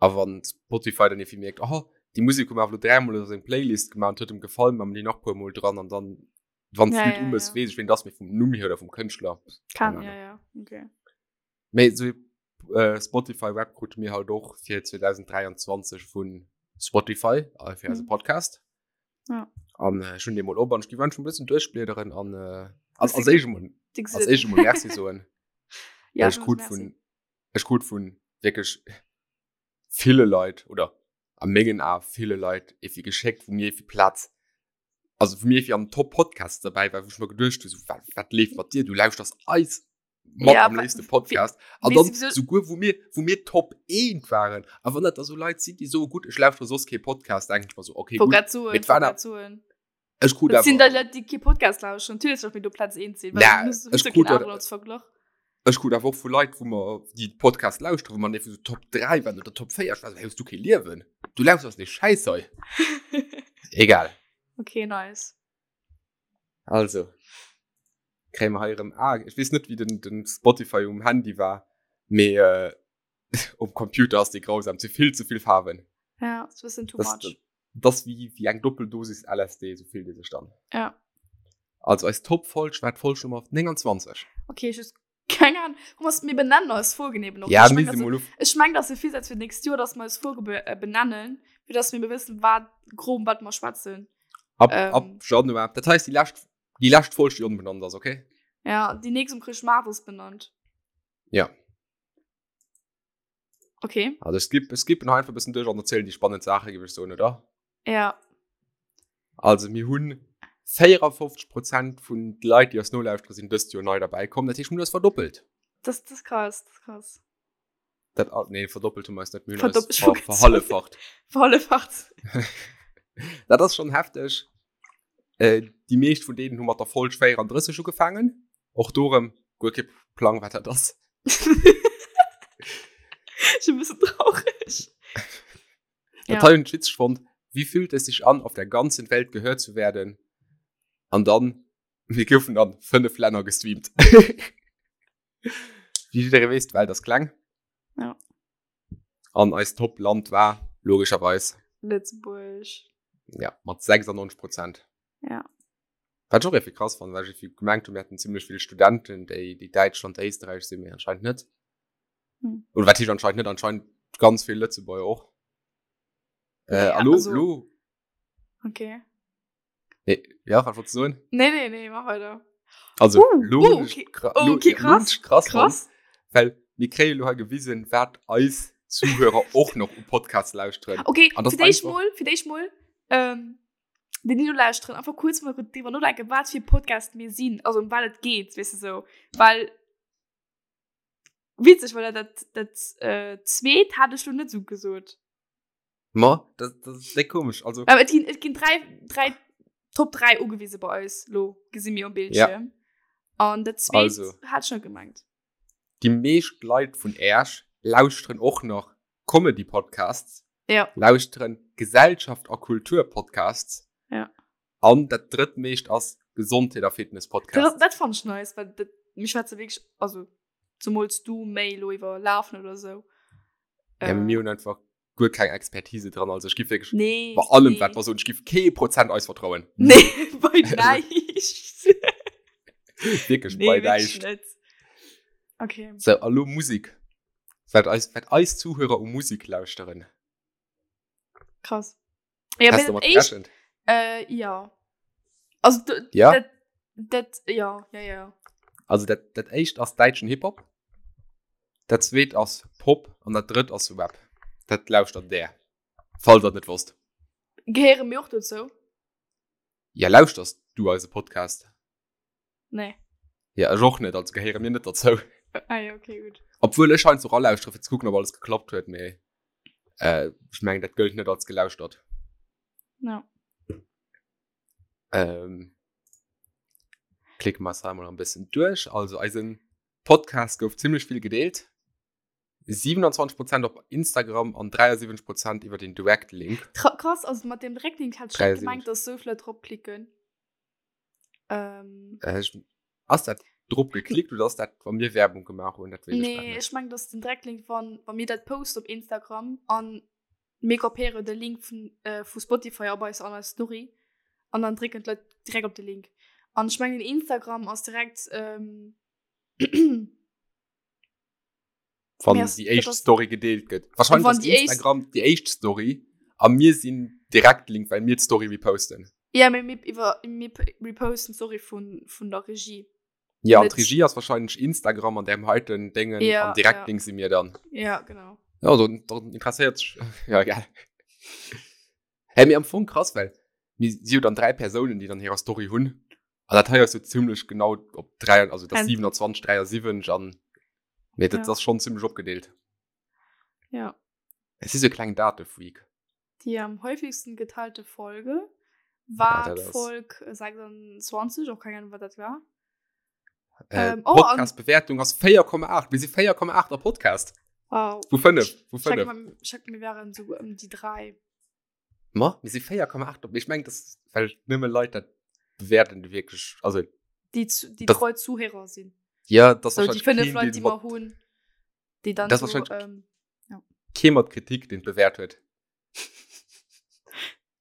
A wann Spotify dann irgendwie mierkt, oh, déi Musik hu mer awer lo dräimol a seng Playlist gemaach an huet em gefall, ma mer déi nach puer mol dran an dann, wann Ja, d'Lidd ja, um ass, ja. weess ech, ween dat ass, mee vum Numm hier oder vum Kënschtler, Kann, keine ja, Ahnung. ja, okay. Mee sou äh, Spotify Wrapped krute mir halt och fir 2023 vun Spotify äh, fir eise Mhm. Podcast. Ja. An äh, ech hunn dee mol op an ech géif einfach e bëssen duerchbliederen an äh, als, Hues als du éischt emol, Déi als gesinn? éischt emol Merci soen. Ja, Well ech du krut merci. vun ech krut vun wierklech ville Leit oder a mengen Ae ville Leit evi geschéckt, wou mir evi Plaz, also wou mir evi an Top Podcasts derbäi war, wou ech mer geduecht hu sou, wat, wat leeft mat dir? Du lauschters eis mat Ja, am wa- léifste Podcast. An weess dann du, wieso- souguer wou mir, wou mir Top 1 waren. A wann dat da sou Leit sinn, déi soe gutt, ech lauschtere soss kee Podcast, denken ech mer sou, okay, Wollt gutt, grad soen, mee et wollt waren grad soen. ech krut Dat sinn da awer Leit, déi kee Podcast lauschteren. Natierlech datt mir do Platz 1 sinn, well Na, du hues ech jo krut keen dat- aneren als Verglach. Ech krut awer och vu Leit, wou mer déi Podcast lauschteren, wou mer einfach so Top 3 waren oder Top 4. Ech war so, hey, hues du kee Liewen? Du lauschters dee Schäiss hei. Egal. Okay, nice. Also, kréie mer hei erëm, ah, ech weess net, wéi den, den Spotify um Handy war, mee äh, um Computer ass dee grausam, zu vill, zu vill Faarwen. Ja, ass e bëssen too Das, much. das ass wéi, wéi eng Doppeldosis LSD, sou fillt ee sech dann. Ja. Also eis Top-Folg war d'Folg Nummer 29. Okay, ech hues keng Ahnung. Thomas, mir benennen eis Folgen eben och. Ja, ich mir mein, si also, mol uf. ech meng, dass e Virsatz fir d'nächst Joer, dass mer eis Folge be äh, benennen, fir dass mir wëssen, wat grob wat mer schwätzen. Ab, Ähm. ab Januar. Dat heisst, déi lescht, déi lescht Folg, déi onbenannt ass, okay? Ja, déi nächst um Chrëschtmaart ass benannt. Ja. Okay. Also ech skip, ech skippen einfach e bëssen duerch an erzielen déi spannend Saache, géif ech soen, oder? Ja. Also mir hunn 54 Prozent vun de Leit, déi eis nolauschtere, sinn dëst Joer nei derbäi komm. Dat heescht, mir hunn eis verdoppelt. Das, das ist krass, das ist krass. Dat, ah, nee, verdoppelt hu mer eis net, mir hunn eis ver, verhalleffacht. Verhalleffacht. Dat ass schon hefteg. Äh, déi meescht vun deenen hu mat der Folg 34 ugefaangen. Och do erëm guer kee Plang, wat dat ass. Ech e bëssen traureg. Dat hei hunn ech witzeg fonnt. Wie fühlt es sich an, auf der ganzen Welt gehört zu werden? An dann, mir goufen an 5 Länner gestreamt. Wéi jidderee weess, d'Welt ass kleng. Ja. An eist Top-Land war logescherweis Lëtzebuerg. Ja, mat 96 Prozent. Ja. Wat ech och irgendwie krass fannen, well ech irgendwie gemengt hunn, mir hätten zimmlech vill Studenten, déi, déi Däitschland, Éisterräich sinn, mee anscheinend net. Hm. Oder wat heescht anscheinend net? Anscheinend ganz vill Lëtzebuerger och. Äh, Ja, a lo, also- lo, Okay. Nee, ja, wat wolltest du soen? Nee, nee, nee, mach weiter. Also, Uh, lo uh, hunn ech okay. kra- Oh, lo- okay, ja, lo hunn krass. ech krass fonnt, Krass. well mir kréie lo hei gewisen, wat eis Zuhörer och nach u Podcasts lauschteren. Okay, An das fir d'éischt einfach- mol, fir d'éischt mol, ähm, déi déi lo lauschteren, einfach kurz mal drüber nodenken, wat fir Podcast mir sinn, also um wat et geet, weess de sou. Well witzeg, well dat, dat, äh, zweet hat ech lo net sou gesot. Ma, dat, dat ass déck komesch. Also, Aber et ginn, et ginn drei, drei, Top 3 ugewise bei eis, lo gesi mir um Bildschirm. Ja. An dat zweet Also. hat schon gemengt. déi meescht Leit vun Äerch lauschteren och nach Comedy-Podcasts, Ja. lauschteren Gesellschaft a Kultur-Podcasts. Ja. An dat drëttmeescht ass Gesondheet a Fitness-Podcasts. Dat, dat fand ich nice, weil dat, mir schwätze wirklich, also zumols du méi lo iwwer Lafen oder sou. Ja, mir hunn einfach guer keng Expertise dran, also ech giff wierklech Nee, bei allem, nee. wat mer soen, ech giff kee Prozent eis vertrauen. Nee, bei näischt. Wierklech nee, bei wirklich näischt. net. Okay. So, a lo Musik. Wat eis, wat eis Zuhörer u Musik lauschteren. Krass. Ja, Hast mee du mat dat éischt, gerechent? äh, ja. Also, d- Ja? dat, dat, ja, ja, ja. Also dat, dat éischt ass däitschen Hip-Hop, dat zweet ass Pop an dat drëtt ass Rap. Dat lauschtert där, falls der et net wosst. Gehéiere mir och dozou? Ja, lauschters du eise Podcast? Nee. Ja, ech och net, also gehéiere mir net dozou. Ah ja, okay, gutt. Obwuel ech heiansdo ralauschtere fir ze kucken, ob alles geklappt huet, mee äh, ech mengen, dat gëllt net als gelauschtert. Ja. Ähm, klicke mer eis hei mol e bëssen duerch. Also eisen Podcast gouf zimmlech vill gedeelt. 27 Prozent op Instagram an 73 Prozent iwwer den Direct Link. Krass, also mat dem Direct Link hat ech net 73. gemengt, dass sou vill Leit drop klicken. Ähm, Äh, ich, ass dat drop geklickt oder ass dat, wa mir Werbung gemaach hunn? Dat weess ech grad nee, net. ech meng, dass den Direct Link, wann, wa mir dat posten op Instagram an mir kopéieren de Link vun, äh, vu Spotify op eis an eis Story an dann drécken d'Leit direkt op de Link. An ech mengen, Instagram ass direkt, ähm, Wann Merci, déi éischt dat ass- Story gedeelt gëtt. Wahrscheinlech Wann ass déi éischt- Instagram déi éischt Story a mir sinn direkt Link, well mir d'Story reposten. Ja, mee mir iwwer mir reposten d'Story vun, vun der Regie. Ja, an Net- d'Regie ass wahrscheinlech Instagram an deem heiten Déngen Ja, an direkt ja. Link si mir dann. Ja, genau. Ja, dann, dann interesséiert sech. Ja, egal. Hey, mee am Fong krass, well mir si jo dann 3 Persounen, déi dann hirer Story hunn. An dat hei ass jo zimmlech genau op 3, also dat Ein- 27, 73 an nee, dat Ja. ass schon zimmlech opgedeelt. Ja. Es si sou kleng Datefreak. Die am häufigsten geteilte Folge war Ja, dat ass- Folg 26, och keng Ahnung, wat dat war. Äh, Ähm, oh, an- Podcast-Bewertung ass 4,8. Mir si 4,8 a Podcast. Wow. Vu 5. Vu Ich sag 5. mal, ich sag, mir wären so um die 3. Ma, mir si 4,8 op. Ich meng, das well nëmme Leit dat bewerten, déi wierklech, also Die, zu, die Das- treu Zuhörer sind. ja, das So, die fünf Leute, die wir hunn, die dann Das so, wahrscheinlich- ähm, kee mat Kritik, den bewäert huet.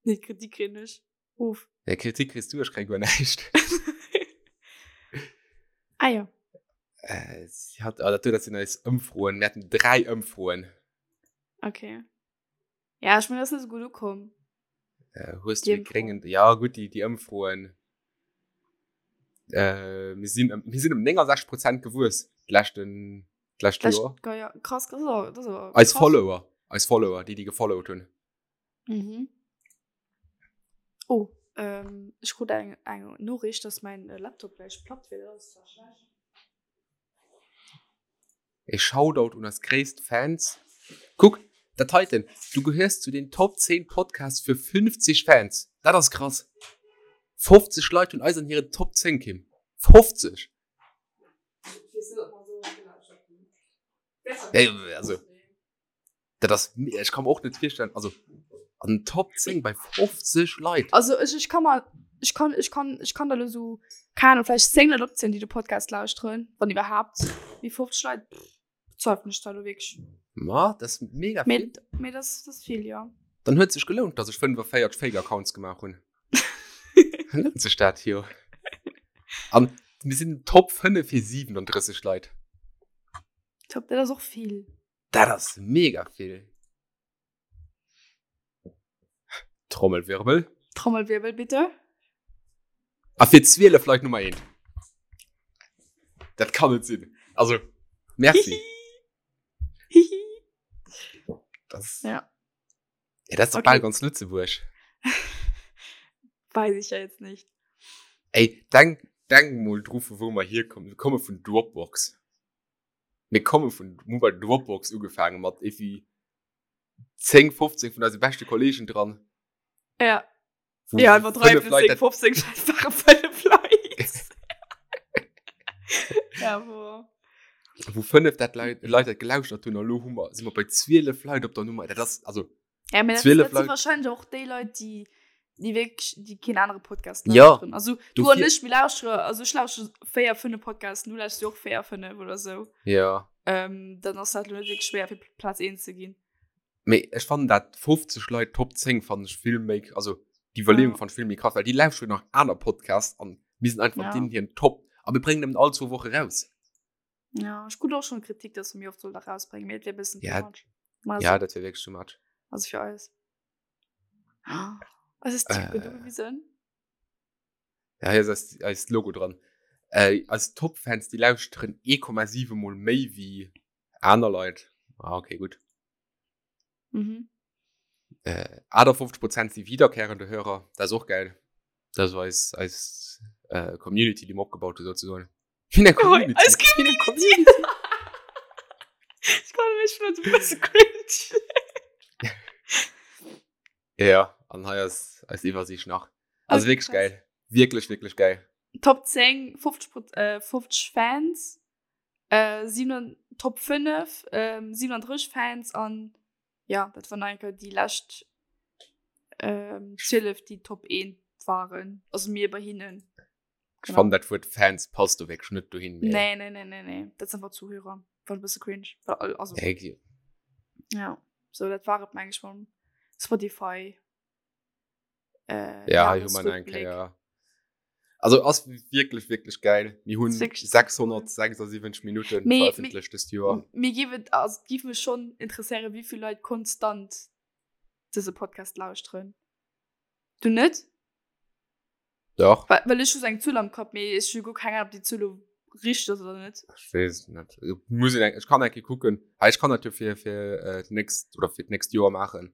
nee, Kritik kriegen ich. Uff. Ja, Kritik kriegst du, ich krieg guer näischt. Ah ja. Äh, sie hat, ah, dat, dat sinn eis Ëmfroen. Mir haten 3 Ëmfroen. Okay. Ja, ich meine, das ist nicht so gut gekommen. Äh, hues Die du Ëmfro. gréngen, ja gut, déi, déi Ëmfroen. Äh, mir sinn, ëm- mir sinn ëm 69 Prozent gewuess d'leschten, d'lescht Das, Joer. ja, krass, krass, das ist aber Eis krass. Follower, eis Follower, déi, déi gefollowt hunn. Mhm. Oh, ähm, ich krut eng, eng Nachricht, dass mein äh, Laptop gleich platt wird. Das ist zwar schlecht. E Shoutout un eis gréisst Fans. Kuck, dat heiten, du gehéiers zu den Top 10 Podcasts fir 50 Fans. Dat ass krass. 50 Leit hunn eis an hiren Top 10, Kim. 50! Ja, also, dat ass, ech kann mir och net virstellen, also an den Top 10 bei 50 Leit. Also ech, ech kann mal, ech kann, ech kann, ech kann da lo so, keine Ahnung, vielleicht 10 Leit opzielen, déi de Podcast lauschteren, wann iwwerhaapt. Mee 50 Leit, pff, bezweifelen ech da lo wierklech. Ma, dat ass mega vill. Mee, mee das, das vill, ja. Dann huet sech gelount, dass ech 45 Fake-Accounts gemaach hunn. Lount sech dat jo. An mir sinn Top 5 fir 37 Leit. Top, dat ass och vill. Dat ass mega vill. Trommelwirbel. Trommelwirbel, bitte. A fir 12 Leit Nummer 1. Dat kann net sinn. Also, merci. Hihi. Das, ja. Ja, das ist doch okay. bal ganz Lützeburg. Weiß ich ja jetzt nicht. Ey, denk, denk mal drauf, wo wir hier kommen. Wir kommen von Dropbox. Mir komme vun hu bei Dropbox ugefaange mat evi 10 15 vun eise beschte Kollegen dran. Ja. Wo ja, iwwer 3 bis 10, 15 ware 5 Leit. Ja, wo. Wou 5 dat Leit, Leit dat gelauschtert hunn, a lo hu mer, si mer bei 12 Leit op der Nummer. Dat ass, also. Ja, mä dat, 12 dat si Leit. wahrscheinlech och déi Leit, déi, déi wierklech, déi keen anere Podcast Ja, lauschteren. Also, du an dofir- ech, mir lauschtere, also ech lauschtere 4, 5 Podcasten, du lauschterst jo och 4, 5 oder sou. Ja. Ähm, dann ass dat lo net wierklech schwéier, fir Plaz 1 ze ginn. Mee ech fannen dat 50 Leit Top 10 fannen ech vill méi, also déi Iwwerleeung Ja. fannen ech vill méi krass, well déi lauschteren nach aner Podcasts an mir sinn einfach Ja. deenen hiren Top a mir bréngen nëmmen all zwou Woche raus. Ja, ech krut och schon Kritik, dass mer méi oft solle rausbréngen, mee et wär e bëssen Ja, too much. Ma ja, dat wär wierklech too much. Also fir eis. Eis ist Typ Äh. gewisen. Ja, hier ass eist, eist Logo dran. Äh, eis Top-Fans, déi lauschteren 1,7 mol méi wéi aner Leit. Ah, okay, gutt. Mhm. Äh, 58 Prozent si wiederkehrende Hörer. Dat ass och geil. Dat ass eis, eis äh, Community, déi mer opgebaut hu souzesoen. Wéi eng Community? Eis Wéi eng Community? Ich kann mich schon so ein bisschen cringe. Ja, an hei ass eis Iwwersiicht nach. Also Okay, wierklech krass. geil. Wierklech, wierklech geil. Top 10, 50, Pro- äh, 50 Fans, äh, 7, Top 5, ähm, 37 Fans an ja, dat waren eigentlich déi lescht ähm, 12, déi Top 1 waren. Also mir bei hinnen. Ech fannen dat Wuert Fans passt do wierklech net dohin. mee- Nee, nee, nee, nee, nee. Dat sind einfach Zuhörer. War e bësse cringe. War, also, Nee, gi- ja. So, dat war et meng ech vum Spotify. Äh, Ja, hei hu mer eng Jahresrückblick. Kéier. Also ass wierklech, wierklech geil. Mir hunn Ist wirklich 676 Minuten Mee- veröffentlecht dëst Joer. Mir géif et, also, et géif mech schon interesséieren, wéi vill Leit konstant dëse Podcast lauschteren. Du net? Doch. Well, well ech hu sou eng Zuel am Kapp, mee ech hu guer keng Ahnung, ob déi Zuel lo richteg ass oder net. Ech weess et net. Muss een eng, ech kann eng Kéier kucken. Ah, ech kann dat jo fir, fir äh, d'nächst oder fir d'nächst Joer maachen.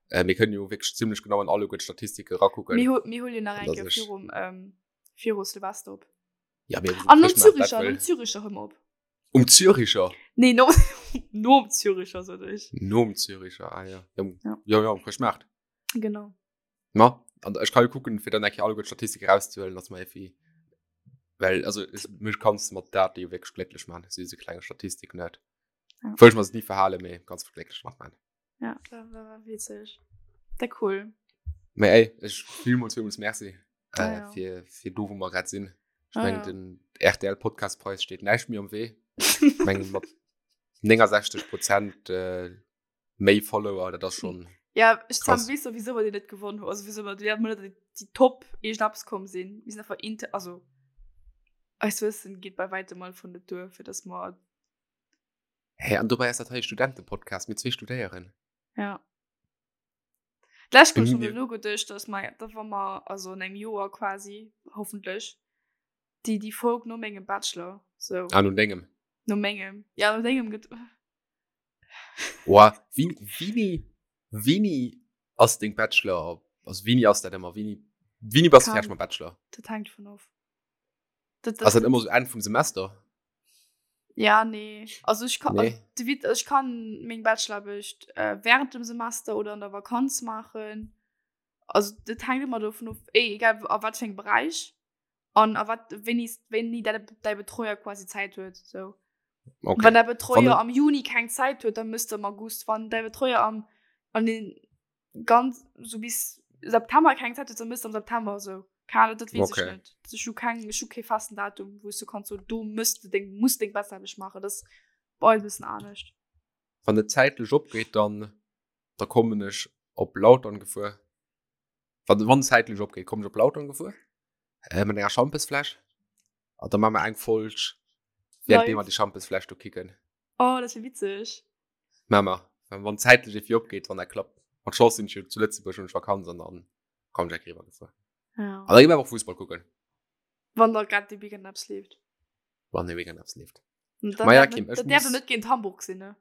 Äh, mir kënnen jo wierklech zimmlech genau an alleguer d'Statistike rakucken. Mir, mir huelen nach eng An Kéier dass ech- virum, ähm, viru Silvester op. Ja, mir An nom Chrëschtmaart, dat Züricher, wëll- nom Züricher hu mer op. Um Züricher? Nee, no, nom Züricher, sot ech. Nom Züricher, ah ja. Ja, um, Ja. ja, ja, um Chrëschtmaart. Genau. Ma, an ech kann jo kucken, fir dann eng Kéier alleguer d'Statistike rauszehuelen, dass mer effi, well, also, ech, mech kanns de mat Date jo wierklech glécklech man, so diese klenge Statistik net. Ja. Wëll ech mer se ni verhalen, mee kanns mech glécklech mat man. Ja, dat war, war witzeg. Dat cool. Mee ey, ech villmools, villmools Merci, Ah, äh, ja. fir, fir do, wou mer grad sinn. Ech Ah, mengen, ja. den RTL-Podcastpreis steet näischt méi am Wee. Ech mengen, mat 69 Prozent, äh, méi Follower, dat ass schon. Ja, ech Krass. weess sowieso, wat dir net gewonnen hutt. Also, wieso mer déi net déi déi Top iergendeppes komm sinn. Mir sinn einfach inter, also eist Wëssen geet bei weitem mal vun net duer, fir dass mer Hä, an dobäi ass dat hei e Studentepodcast, mir zwee studéieren. Ja. D'lescht Kéier Mir- schon elo geduecht, dass mer, da wa mer, also an engem Joer quasi, hoffentlech, déi déi Folg no mengem Bachelor, sou. Ah, no dengem. No mengem. Ja, no dengem gëtt. Oa, wéini, wéini, wéini ass deng Bachelor, also wéini ass dat ëmmer, wéini, wéini bass du Kann- fäerdeg mam Bachelor? Dat hänkt vun of. Dat, Ass dat ëmmer sou Enn vum Semester? Ja, nee. Also ich kann, Nee. also, de Witz, ich kann meng Bachelorarbecht äh, während dem Semester oder an der Vakanz machen. Also das hängt immer davon of, ey, egal a wat für engem Bereich an a wat wéini wéini däi däi Betreuer quasi Zäit huet so. Okay. Wann däi Betreuer Wann- am Juni keng Zäit huet, dann müsst du am August. Wann däi Betreuer am an den ganz so bis September keng Zäit huet, dann müsst du am September so. Keine Ahnung, dat weess Okay. ech net. Ech hu keng ech hu kee festen Datum, wou s du kanns so do müsst du deng muss deng Bachelorarbecht machen. Das ass bei eis e bëssen anescht. Wann et zäitlech opgeet, dann da kommen ech op Lautern gefuer. Wann wann zäitlech opgeet, kommen ech op Lautern gefuer äh, mat enger Schampesfläsch. An da maache mer eng Folg, während Live. mer déi Schampesfläsch do kicken. Oh, dat wier witzeg. Maache mer. Wann wann zäitlech irgendwie opgeet, wann dat klappt. Mat Chance sinn ech jo zu Lëtzebuerg, hunn ech Vakanz an dann kommen ech eng Kéier eriwwer gefuer. Ja. An da gi mer awer och Fussball kucken. Wann da grad de Weekend eppes leeft. Wann de Weekend eppes leeft. Dat Ma ja, däerf Kim, net, ech dat däerf muss- net géint Hamburg sinn, ne?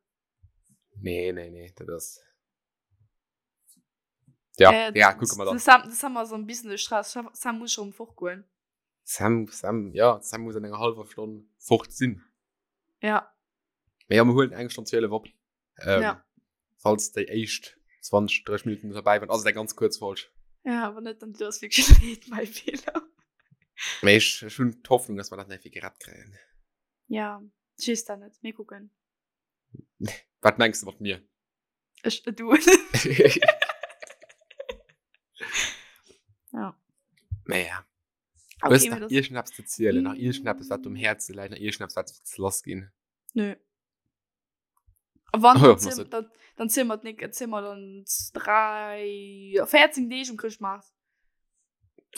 Nee, nee, nee, dat ass. Ja, Äh, ja, kucke mer de dann. Sam, de Sam ass am bisschen de Stress. Sam, Sam muss schon fortgoen. Sam, Sam, ja, Sam muss an enger halber Stonn fort sinn. Ja. Mee ja, mir huelen eng Stonn 12 op. Ähm, Ja. Falls déi éischt 20, 30 Minuten dabei waren, ass et eng ganz kuerz Folg. Ja, awer net, dann du ass wirklich leed, mein Fehler. Mee ech, ech hunn d'Hoffnung, dass mer dat nach gerett kréien. Ja, ich weess dat net. Mir kucken. Wat mengs du mat mir? Ech, du. Ja. Mee ja. Okay, Hues mee nach das- iergendeppes ze zielen, nach iergendeppes, wat um Häerze läit, nach iergendeppes, wat ze lass ginn? Nö. Wann, Oh ja, dann ziel- machst du. dann, dann ziel mer d'Nick, ziel mer dann 3, 14 Deeg um Chrëschtmaart.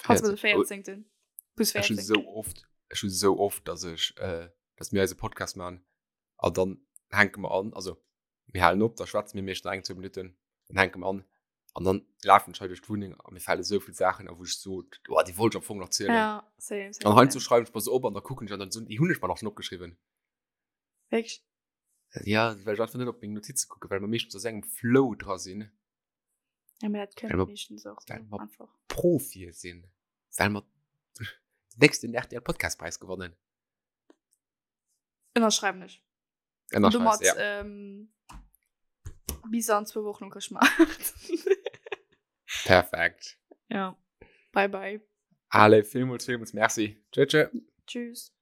Falls mer de 14. 14. Plus Ech hun 14. sou oft, ech hun sou oft, dass ech, äh, dass mir eise Podcast machen an dann hänke mer an, also mir halen op, da schwätze mir meeschtens eng, zwou Minutten, dann hänke mer an an dann lafen ech hei duerch d'Wunneng a mir fale sou vill Saachen a wou ech so, oh, déi wollt ech am Fong nach zielen. Ja, same, same. An heiansdo same. schreiwen ech mer se op an da kucken ech an dann so, déi hunn ech mer nach schon opgeschriwwen. Wirklich? Ja, well ech einfach net op meng Notize kucken, well mer meeschtens a sou engem Flow dra sinn. Ja, aber dat Well kënnt mer- meeschtens och so well mer- einfach. Profie sinn, well mer den nächsten RTL Podcastpreis gewonnen. Ënnerschreiwen ech. Und Ënnerschreifs, domat, ja. ähm, bis an zwou Wochen um Chrëschtmaart. Perfekt. Ja. Bye bye. Allez, villmools, villmools Merci. Tschö, tschö. Tschüss.